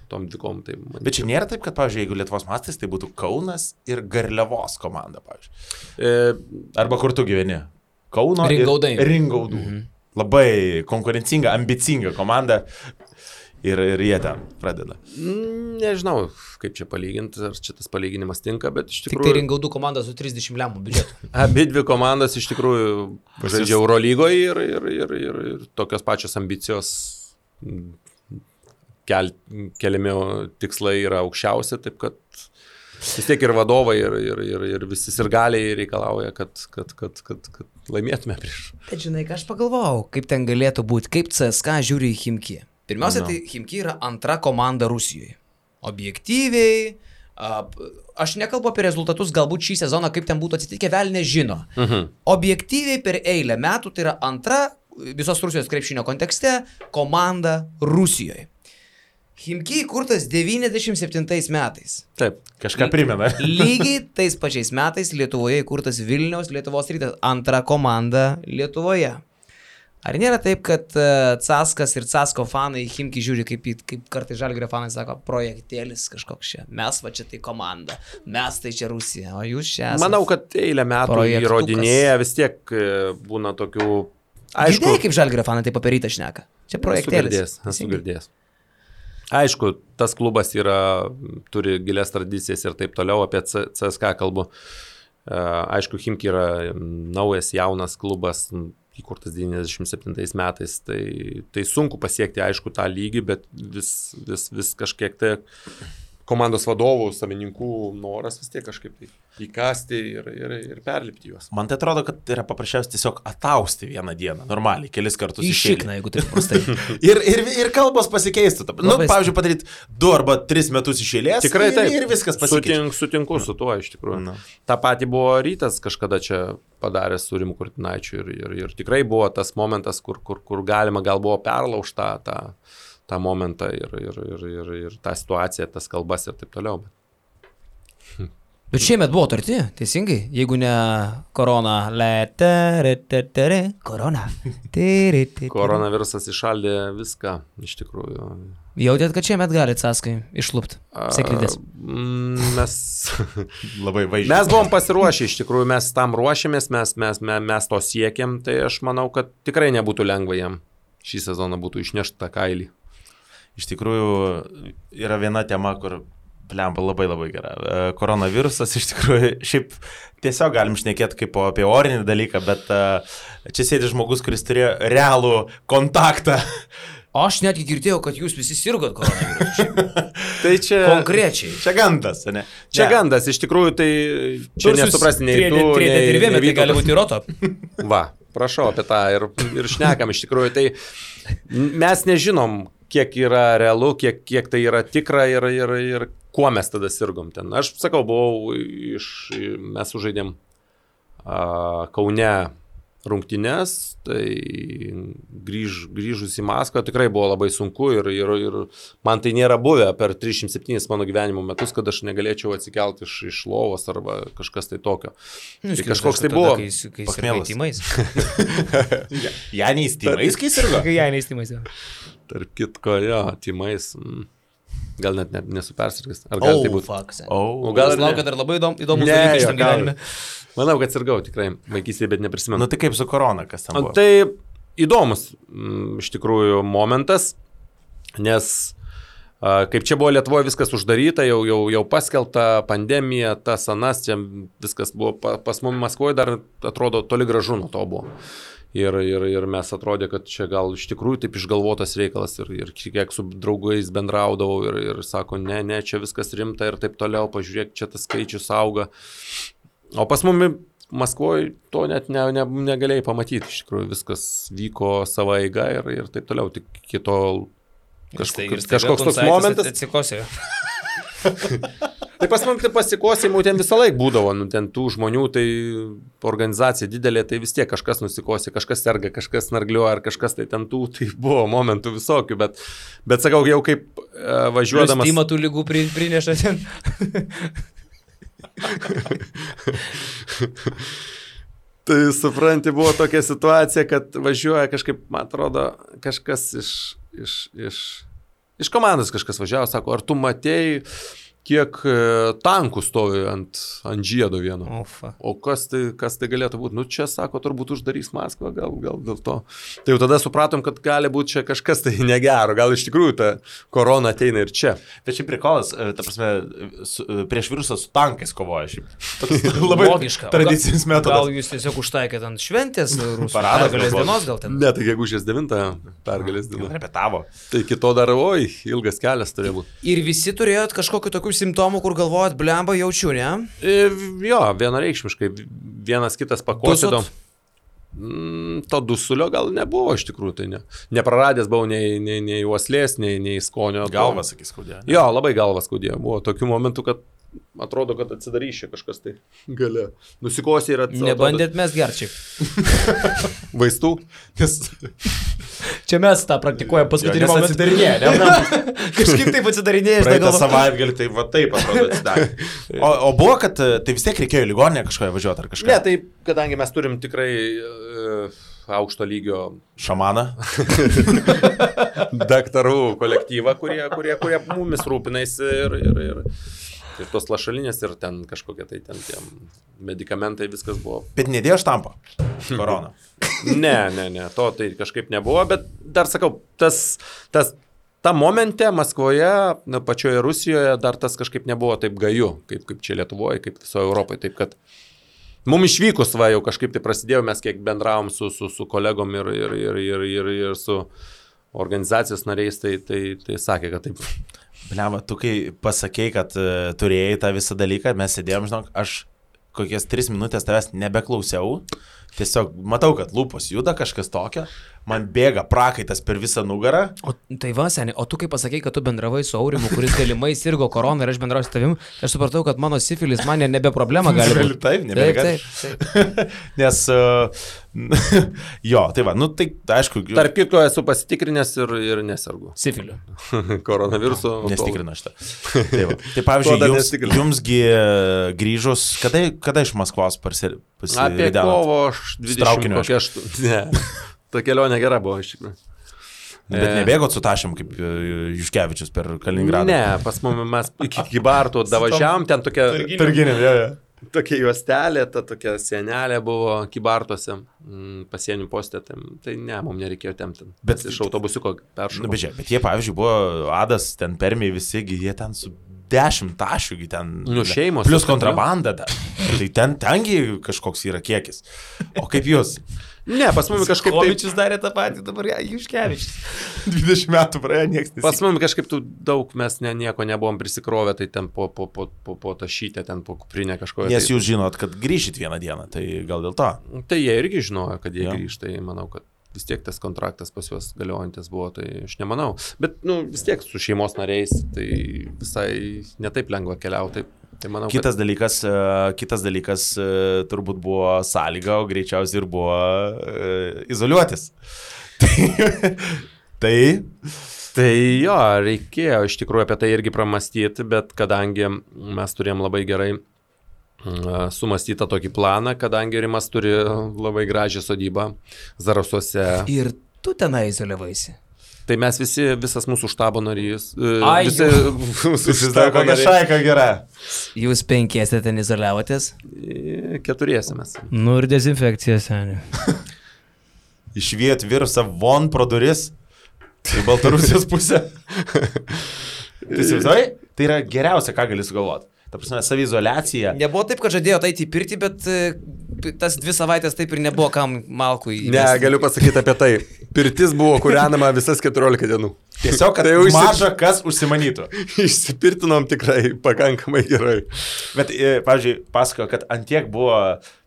Speaker 3: tom dvikom. Tai
Speaker 1: bet čia nėra taip, kad, pavyzdžiui, jeigu Lietuvos mastais, tai būtų Kaunas ir Garliavos komanda, pavyzdžiui. Arba kur tu gyveni? Kauno Ringaudų. Labai konkurencinga, ambicinga komanda ir jie ten pradeda.
Speaker 3: Nežinau, kaip čia palyginti, ar čia tas palyginimas tinka, bet iš tikrųjų...
Speaker 2: Tik tai Ringaudų komanda su 30 lemų biudžetu.
Speaker 3: Abi dvi komandas iš tikrųjų žaidžia Eurolygoje ir tokios pačios ambicijos keliami tikslai yra aukščiausi, taip kad vis tiek ir vadovai ir visi sirgaliai reikalauja, kad laimėtume prieš.
Speaker 2: Bet žinai, ką aš pagalvojau, kaip ten galėtų būti, kaip CSKA žiūri į Chimki. Pirmiausia, tai Chimki yra antra komanda Rusijoje. Objektyviai, aš nekalbu apie rezultatus, galbūt šį sezoną, kaip ten būtų atsitikę, vėl nežino. Objektyviai per eilę metų tai yra antra visos Rusijos krepšinio kontekste komanda Rusijoje. Chimki įkurtas 97 metais.
Speaker 1: Taip, kažką primena.
Speaker 2: Lygiai tais pačiais metais Lietuvoje įkurtas Vilniaus Lietuvos Rytas, antra komanda Lietuvoje. Ar nėra taip, kad Caskas ir Casko fanai Chimki žiūri, kaip kartai Žalgirio fanai sako, projektėlis kažkoks čia, mes va čia tai komanda, mes tai čia Rusija, o jūs čia esate.
Speaker 3: Manau, kad eilę metų įrodinėja, vis tiek būna tokių...
Speaker 2: Aišku, girdėjai, kaip Žalgirio fanai tai paperyta šneka. Čia projektėlis.
Speaker 3: Esu girdėjęs. Aišku, tas klubas turi gilias tradicijas ir taip toliau, apie CSKA kalbu. Aišku, Chimki yra naujas, jaunas klubas, įkurtas 97 metais, tai sunku pasiekti, aišku, tą lygį, bet vis kažkiek tai komandos vadovų, savininkų noras vis tiek kažkaip tai įkasti ir perlipti juos.
Speaker 1: Man tai atrodo, kad yra paprasčiausiai tiesiog atausti vieną dieną, normaliai, kelis kartus
Speaker 2: iššikna, jeigu taip prastai.
Speaker 1: ir kalbos pasikeistų. Nu, pavyzdžiui, padaryti 2 arba 3 metus iš eilės.
Speaker 3: Tikrai taip.
Speaker 1: Ir viskas pasikeičia.
Speaker 3: Sutinku su tuo, iš tikrųjų. Ta pati buvo Rytas kažkada čia padaręs su Rimu Kurtinaičiu ir tikrai buvo tas momentas, kur galima gal buvo perlaužta tą momentą ir tą situaciją, tas kalbas ir taip toliau.
Speaker 2: Bet šiemet buvo tarti, teisingai, jeigu ne korona. Korona.
Speaker 3: Koronavirusas išaldė viską, iš tikrųjų.
Speaker 2: Jautėt, kad šiemet gali Caskai išlupti seklidės?
Speaker 3: Mes
Speaker 1: labai vaizdžiai.
Speaker 3: Mes buvom pasiruošę, iš tikrųjų, mes tam ruošėmės, mes to siekėm, tai aš manau, kad tikrai nebūtų lengva jam šį sezoną būtų išnešti tą kailį.
Speaker 1: Iš tikrųjų, yra viena tema, kur plemba labai labai gera. Koronavirusas, iš tikrųjų, šiaip tiesiog galim šnekėti kaip apie orinį dalyką, bet čia sėdi žmogus, kuris turėjo realų kontaktą.
Speaker 2: Aš netgi girdėjau, kad jūs visi sirgot koronavirusu.
Speaker 3: Tai čia...
Speaker 1: Konkrečiai. Čia gandas, ne?
Speaker 3: Čia gandas, iš tikrųjų, tai čia nesuprasti nei tu, nei
Speaker 2: tai gali būti roto.
Speaker 3: Va, prašau apie tą ir šnekam, iš tikrųjų, tai mes nežinom, kiek yra realu, kiek tai yra tikra ir kuo mes tada sirgom ten. Aš sakau, mes sužaidėm Kaune rungtynes, tai grįžus į Maskvą tikrai buvo labai sunku ir man tai nėra buvę per 307 mano gyvenimo metus, kad aš negalėčiau atsikelti iš lovos arba kažkas tai tokio. Tai kažkoks tai buvo.
Speaker 2: Kai sirgai tymais.
Speaker 1: Janiais tymais, kai sirgo?
Speaker 2: Kai Janiais tymais.
Speaker 3: Tarp kitko, jo, tymais. Gal net nesu persirgęs. Ar gal tai būtų?
Speaker 2: O gal laukia dar labai įdomus dalykas šitam gyvenime.
Speaker 3: Manau, kad sirgau tikrai vaikystėje, bet neprisimenu.
Speaker 1: Nu tai kaip su korona, kas ten buvo?
Speaker 3: Tai įdomus iš tikrųjų momentas, nes kaip čia buvo Lietuvoje viskas uždaryta, jau paskelbta pandemija, tas anas, čia viskas buvo pas mumis Maskvoje dar atrodo toli gražu nuo to buvo. Ir mes atrodė, kad čia gal iš tikrųjų taip išgalvotas reikalas ir kiek su draugais bendraudavau ir sako, ne, čia viskas rimta ir taip toliau, pažiūrėk, čia tas skaičius auga. O pas mumis Maskvoje to net negalėjai pamatyti, iš tikrųjų viskas vyko savo eiga ir taip toliau, tik kitol kažkoks toks momentas.
Speaker 2: Atsikosė.
Speaker 3: Tai pas man pasikosimų ten visą laiką būdavo, ten tų žmonių, tai organizacija didelė, tai vis tiek kažkas nusikosė, kažkas serga, kažkas snargliuoja, ar kažkas tai ten tų, tai buvo momentų visokių, bet sakau, jau kaip važiuodamas...
Speaker 2: Stima tų lygų prineša ten.
Speaker 3: Tai supranti, buvo tokia situacija, kad važiuoja kažkaip, man atrodo, kažkas iš komandos kažkas važiavo, sako, ar tu matėjai, kiek tankų stovi ant žiedo vieno. O kas tai galėtų būti? Nu čia, sako, turbūt uždarys Maskvą, gal dėl to. Tai jau tada supratom, kad gali būti čia kažkas tai negero, gal iš tikrųjų ta korona ateina ir čia.
Speaker 1: Bet šiaip prikolas, ta prasme, prieš virusą su tankais kovoja šiaip. Labai
Speaker 2: logiška.
Speaker 1: Tradicinis metodas.
Speaker 2: Gal jūs tiesiog užtaikėt ant šventės rusų
Speaker 1: Paradas,
Speaker 2: pergalės dienos gal ten?
Speaker 3: Ne, tai gegužės 9 pergalės diena.
Speaker 1: Repetavo.
Speaker 3: Tai kito dar, ilgas kelias turėjo būti.
Speaker 2: Ir visi turėjot kažkokiu tokių simptomų, kur galvojat, blemba, jaučiu, ne?
Speaker 3: Jo, vienareikšmiškai. Vienas kitas pakosėdom. To dusulio gal nebuvo iš tikrųjų, tai ne. Nepraradęs buvau nei uoslės, nei skonio.
Speaker 1: Galva, sakys, skaudėjo.
Speaker 3: Jo, labai galva skaudėjo. Buvo tokių momentų, kad atrodo, kad atsidaryšė kažkas tai gale. Nusikosė ir atsidaryšė.
Speaker 2: Nebandėt mes gerčiai.
Speaker 3: Vaistų?
Speaker 2: Čia mes tą praktikuojam paskutinį momentą.
Speaker 1: Atsidarinėja,
Speaker 2: Kažkaip taip atsidarinėja.
Speaker 1: Praeitą savaitgalį tai va taip atrodo atsidarė. O buvo, kad tai vis tiek reikėjo į ligoninę kažkoje važiuoti ar kažką?
Speaker 3: Ne, tai kadangi mes turim tikrai aukšto lygio
Speaker 1: šamaną,
Speaker 3: daktarų kolektyvą, kurie mumis rūpinasi ir tos lašalinės ir ten kažkokie tai ten tie medikamentai, viskas buvo.
Speaker 1: Bet nedėjo štampo korona?
Speaker 3: Ne, to tai kažkaip nebuvo, bet dar sakau, ta momente Maskvoje, pačioje Rusijoje dar tas kažkaip nebuvo taip gaju, kaip čia Lietuvoje, kaip visoje Europoje, taip kad mums išvykus jau kažkaip tai prasidėjo, mes kiek bendravom su kolegom ir su organizacijos nariais, tai sakė, kad taip.
Speaker 1: Bliama, tu kai pasakei, kad turėjai tą visą dalyką, mes sėdėjom, žinok, aš kokias 3 minutės tavęs nebeklausiau, tiesiog matau, kad lūpos juda kažkas tokio, man bėga prakaitas per visą nugarą.
Speaker 2: O tai va, seniai, o tu kai pasakei, kad tu bendravai su Aurimu, kuris galimai sirgo koroną ir aš bendrauju su tavim, aš supratau, kad mano sifilis man nebe problema gali būti.
Speaker 1: Taip, nebėga. Nes, jo, tai va, nu tai aišku.
Speaker 3: Tarp kitko esu pasitikrinęs ir nesergu.
Speaker 2: Sifiliu.
Speaker 3: Koronaviruso.
Speaker 1: Nestikrino šitą. Tai pavyzdžiui, jumsgi grįžus, kada iš Maskvos pasivedėte?
Speaker 3: Apie kovo 20 kokią ne. Ta kelionė gera buvo iš tikrųjų.
Speaker 1: Bet nebėgot su tašėm kaip Juškevičius per Kaliningradą?
Speaker 3: Ne, pas mumis mes iki Kybartų davažiavom, ten tokia...
Speaker 1: Targinėm, jo.
Speaker 3: Tokia juostelė, ta tokia sienelė buvo Kybartuose, pasienių postė, tai ne, mums nereikėjo tempti. Bet iš autobusiuko peršokau.
Speaker 1: Bet jie, pavyzdžiui, buvo Adas, ten permiai visi, jie ten su 10 tašių, ten...
Speaker 3: Nu, šeimos.
Speaker 1: Plus kontrabanda dar. Tai tengi kažkoks yra kiekis. O kaip jūs?
Speaker 3: Ne, pas mumis kažkaip taip...
Speaker 2: Kovičius darė tą patį, dabar Juškevičius.
Speaker 1: 20 metų praėjo, niekas nesikė.
Speaker 3: Pas mumis kažkaip daug mes nieko nebuvom prisikrovę, tai ten po tašytę, ten po kuprinę kažkoje.
Speaker 1: Nes jūs žinot, kad grįžit vieną dieną, tai gal dėl to?
Speaker 3: Tai jie irgi žinojo, kad jie grįžta, tai manau, kad vis tiek tas kontraktas pas juos galiojantis buvo, tai aš nemanau. Bet vis tiek su šeimos nariais, tai visai netaip lengva keliauti. Tai manau,
Speaker 1: Kitas dalykas turbūt buvo sąlyga, o greičiausiai ir buvo izoliuotis.
Speaker 3: Tai jo, reikėjo iš tikrųjų apie tai irgi pramastyti, bet kadangi mes turėjom labai gerai sumastytą tokį planą, kadangi Rimas turi labai gražią sodybą Zarasuose.
Speaker 2: Ir tu tenai izoliavaisi.
Speaker 3: Tai mes visas mūsų štabo narys.
Speaker 1: Visi dar kokia šaika gera.
Speaker 2: Jūs 5 ten izoliavotės?
Speaker 3: 4 mes.
Speaker 2: Nu ir dezinfekcija, seniai.
Speaker 1: Išviet virusą von pro duris į Baltarusijos pusę. Tai yra geriausia, ką gali sugalvoti. Ta prasme, savizoliacija.
Speaker 2: Nebuvo taip, kad žadėjo eiti į pirtį, bet tas 2 savaitės taip ir nebuvo kam malkų įvesti.
Speaker 3: Ne, galiu pasakyti apie tai. Pirtis buvo kūrenama visas 14 dienų.
Speaker 1: Tiesiog, kad tai maža kas užsimanytų.
Speaker 3: Išsipirtinom tikrai pakankamai gerai.
Speaker 1: Bet, pavyzdžiui, pasakojo, kad antiek buvo,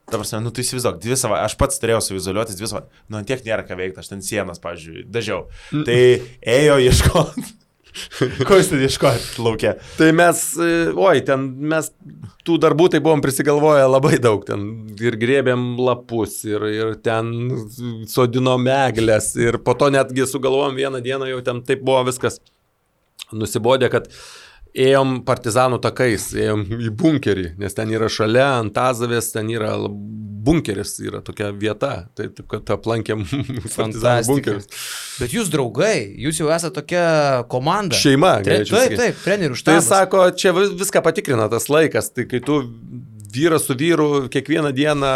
Speaker 1: ta prasme, tu įsivaizduok, 2 savaitės, aš pats turėjau savizoliuotis 2 savaitės, antiek nėra ką veikti, aš ten sienas, pavyzdžiui, dažiau. Tai ėjo ieškoti. Ko jūs ten ieškojate laukia?
Speaker 3: Tai mes tų darbų tai buvom prisigalvoję labai daug, ten ir grėbėm lapus, ir ten sodinom eglės, ir po to netgi sugalvojom vieną dieną, jau ten taip buvo viskas nusibodė, kad ėjom partizanų takais, ėjom į bunkerį, nes ten yra šalia Antazavės, ten yra bunkeris, yra tokia vieta, tai taip, kad aplankėm partizanų bunkerius.
Speaker 2: Bet jūs draugai, jūs jau esate tokia komanda.
Speaker 3: Šeima,
Speaker 2: Taip, trenerių štabas.
Speaker 3: Tai sako, čia viską patikrina tas laikas, tai kai tu vyras su vyru kiekvieną dieną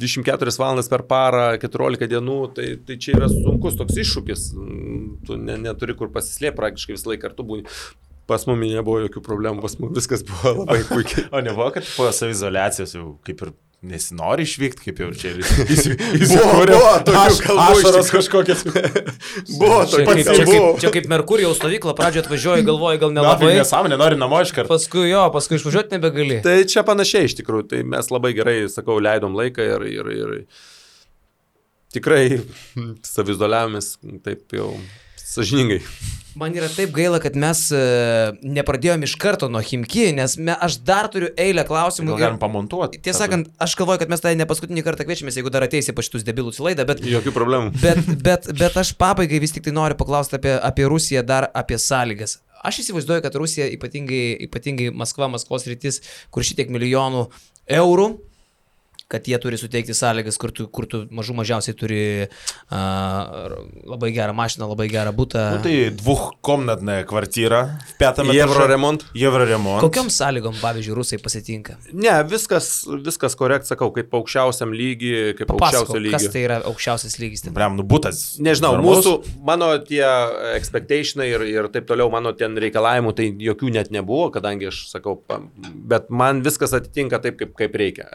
Speaker 3: 24 valandas per parą, 14 dienų, tai čia yra sunkus toks iššūkis, tu neturi kur pasislėpti, praktiškai visą laiką kartu būni. Pas mumi nebuvo jokių problemų, pas mumi viskas buvo labai puikiai.
Speaker 1: O nebuvo, kad po savizoliacijos jau kaip ir nesinori išvykti, kaip jau čia
Speaker 3: buvo tokių kalbų.
Speaker 1: Ašaros kažkokias.
Speaker 3: Buvo tokių.
Speaker 2: Čia kaip Merkurijos stovykla, pradžioje atvažiuoji, galvoji, gal nelabai.
Speaker 1: Nesąmonė, nori namo iš karto.
Speaker 2: Paskui išvažiuoti nebegali.
Speaker 3: Tai čia panašiai iš tikrųjų, tai mes labai gerai, sakau, leidom laiką ir tikrai savizoliavomės taip jau sąžiningai.
Speaker 2: Man yra taip gaila, kad mes nepradėjome iš karto nuo Chimki, nes aš dar turiu eilę klausimų.
Speaker 1: Gal galim pamontuoti?
Speaker 2: Tiesą sakant, aš galvoju, kad mes tai ne paskutinį kartą kviečiamės, jeigu dar ateisi pa šitus debilus į laidą, bet...
Speaker 3: Jokių problemų.
Speaker 2: Bet aš pabaigai vis tik tai noriu paklausti apie Rusiją, dar apie sąlygas. Aš įsivaizduoju, kad Rusija, ypatingai Maskvos rytis, kur šitiek milijonų eurų, kad jie turi suteikti sąlygas, kur tu mažiausiai turi labai gerą mašiną, labai gerą butą.
Speaker 1: Nu, tai 2-komnatnė kvartyra, 5
Speaker 3: Евроремонт.
Speaker 2: Kokiom sąlygom, pavyzdžiui, rusai pasitinka?
Speaker 3: Ne, viskas korekt, sakau, kaip aukščiausiam lygiai, kaip aukščiausio lygio.
Speaker 2: Kas tai yra aukščiausias lygis?
Speaker 1: Butas.
Speaker 3: Nežinau, mano tie expectationai ir taip toliau, mano ten reikalavimų, tai jokių net nebuvo, kadangi aš sakau, bet man viskas atitinka taip, kaip reikia.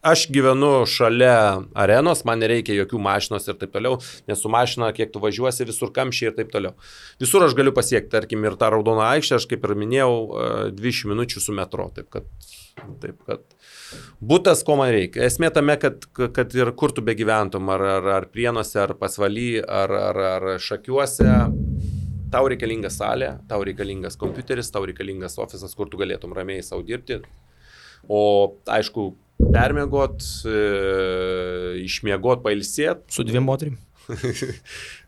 Speaker 3: Aš gyvenu šalia arenos, man nereikia jokių mašinos ir taip toliau, nes su mašina, kiek tu važiuosi, visur kamščiai ir taip toliau. Visur aš galiu pasiekti, tarkim, ir tą raudoną aikštę, aš kaip ir minėjau, 20 minučių su metro, taip kad butas, ko man reikia. Esmė tame, kad ir kur tu begyventum, ar Prienuose, ar Pasvaly, ar Šakiuose, tau reikalinga salė, tau reikalingas kompiuteris, tau reikalingas ofisas, kur tu galėtum ramiai savo dirbti. O aišku, permiegot, išmiegot, pailsėt.
Speaker 2: Su 2 moterim.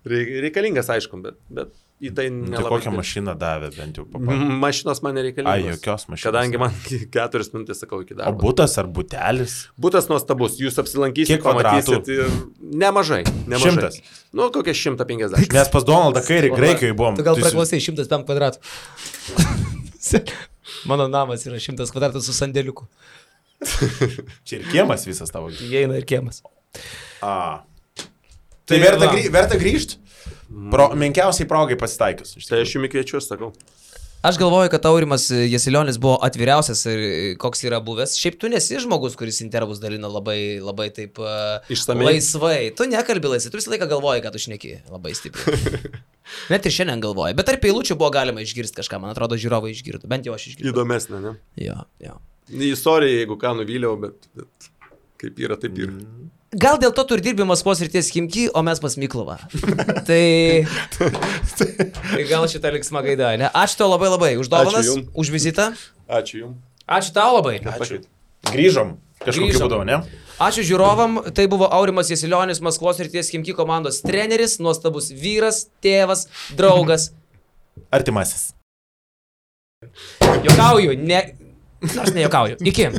Speaker 3: Reikalingas, aišku, bet į tai nelabai.
Speaker 1: Tai kokią mašiną davė bent jau papasakoti?
Speaker 3: Mašinos man nereikalingos.
Speaker 1: Jokios mašinos.
Speaker 3: Kadangi man 4 minutės, sakau, iki darbo.
Speaker 1: O butas ar butelis?
Speaker 3: Butas nuostabus, jūs apsilankysite, pamatysit. Nemažai.
Speaker 1: 100.
Speaker 3: Nu, kokie 150.
Speaker 1: Mes pas Donaldą Kairį Graikijoje buvom.
Speaker 2: Tu gal praklausai 105 kvadratų. Mano namas yra 100 kvadratų su sandėliuku.
Speaker 1: Čia ir kiemas visas tavo.
Speaker 2: Įeina ir kiemas.
Speaker 1: Tai verta grįžti? Menkiausiai progai pasitaikius.
Speaker 3: Tai aš jums kviečiu, sakau.
Speaker 2: Aš galvoju, kad Aurimas Jasilionis buvo atviriausias ir koks yra buvęs. Šiaip tu nesi žmogus, kuris intervus dalina labai taip
Speaker 3: išsamei.
Speaker 2: Laisvai. Tu nekalbi laisvai, tu visą laiką galvoji, kad tu šneki labai stipriai. Net ir šiandien galvoji. Bet tarp eilučių buvo galima išgirsti kažką, man atrodo, žiūrovai išgirdo. Bent jau aš išgirdau.
Speaker 3: Įdomesnė, ne?
Speaker 2: Jo.
Speaker 3: Istorija, jeigu ką nuvyliau, bet kaip yra, taip yra.
Speaker 2: Gal dėl to tu ir dirbi Maskvos ryties Chimki, o mes pas Miklovą. Tai gal šitą liksmą gaidą, ne? Ačiū tau labai už dovanas, už vizitą.
Speaker 3: Ačiū jums.
Speaker 2: Ačiū tau labai.
Speaker 1: Ačiū. Grįžom kažkokiu būdu, ne?
Speaker 2: Ačiū žiūrovam, tai buvo Aurimas Jasilionis, Maskvos Srities Chimki komandos treneris, nuostabus vyras, tėvas, draugas.
Speaker 1: Artimasis.
Speaker 2: Juokauju, nors nejuokauju. Iki.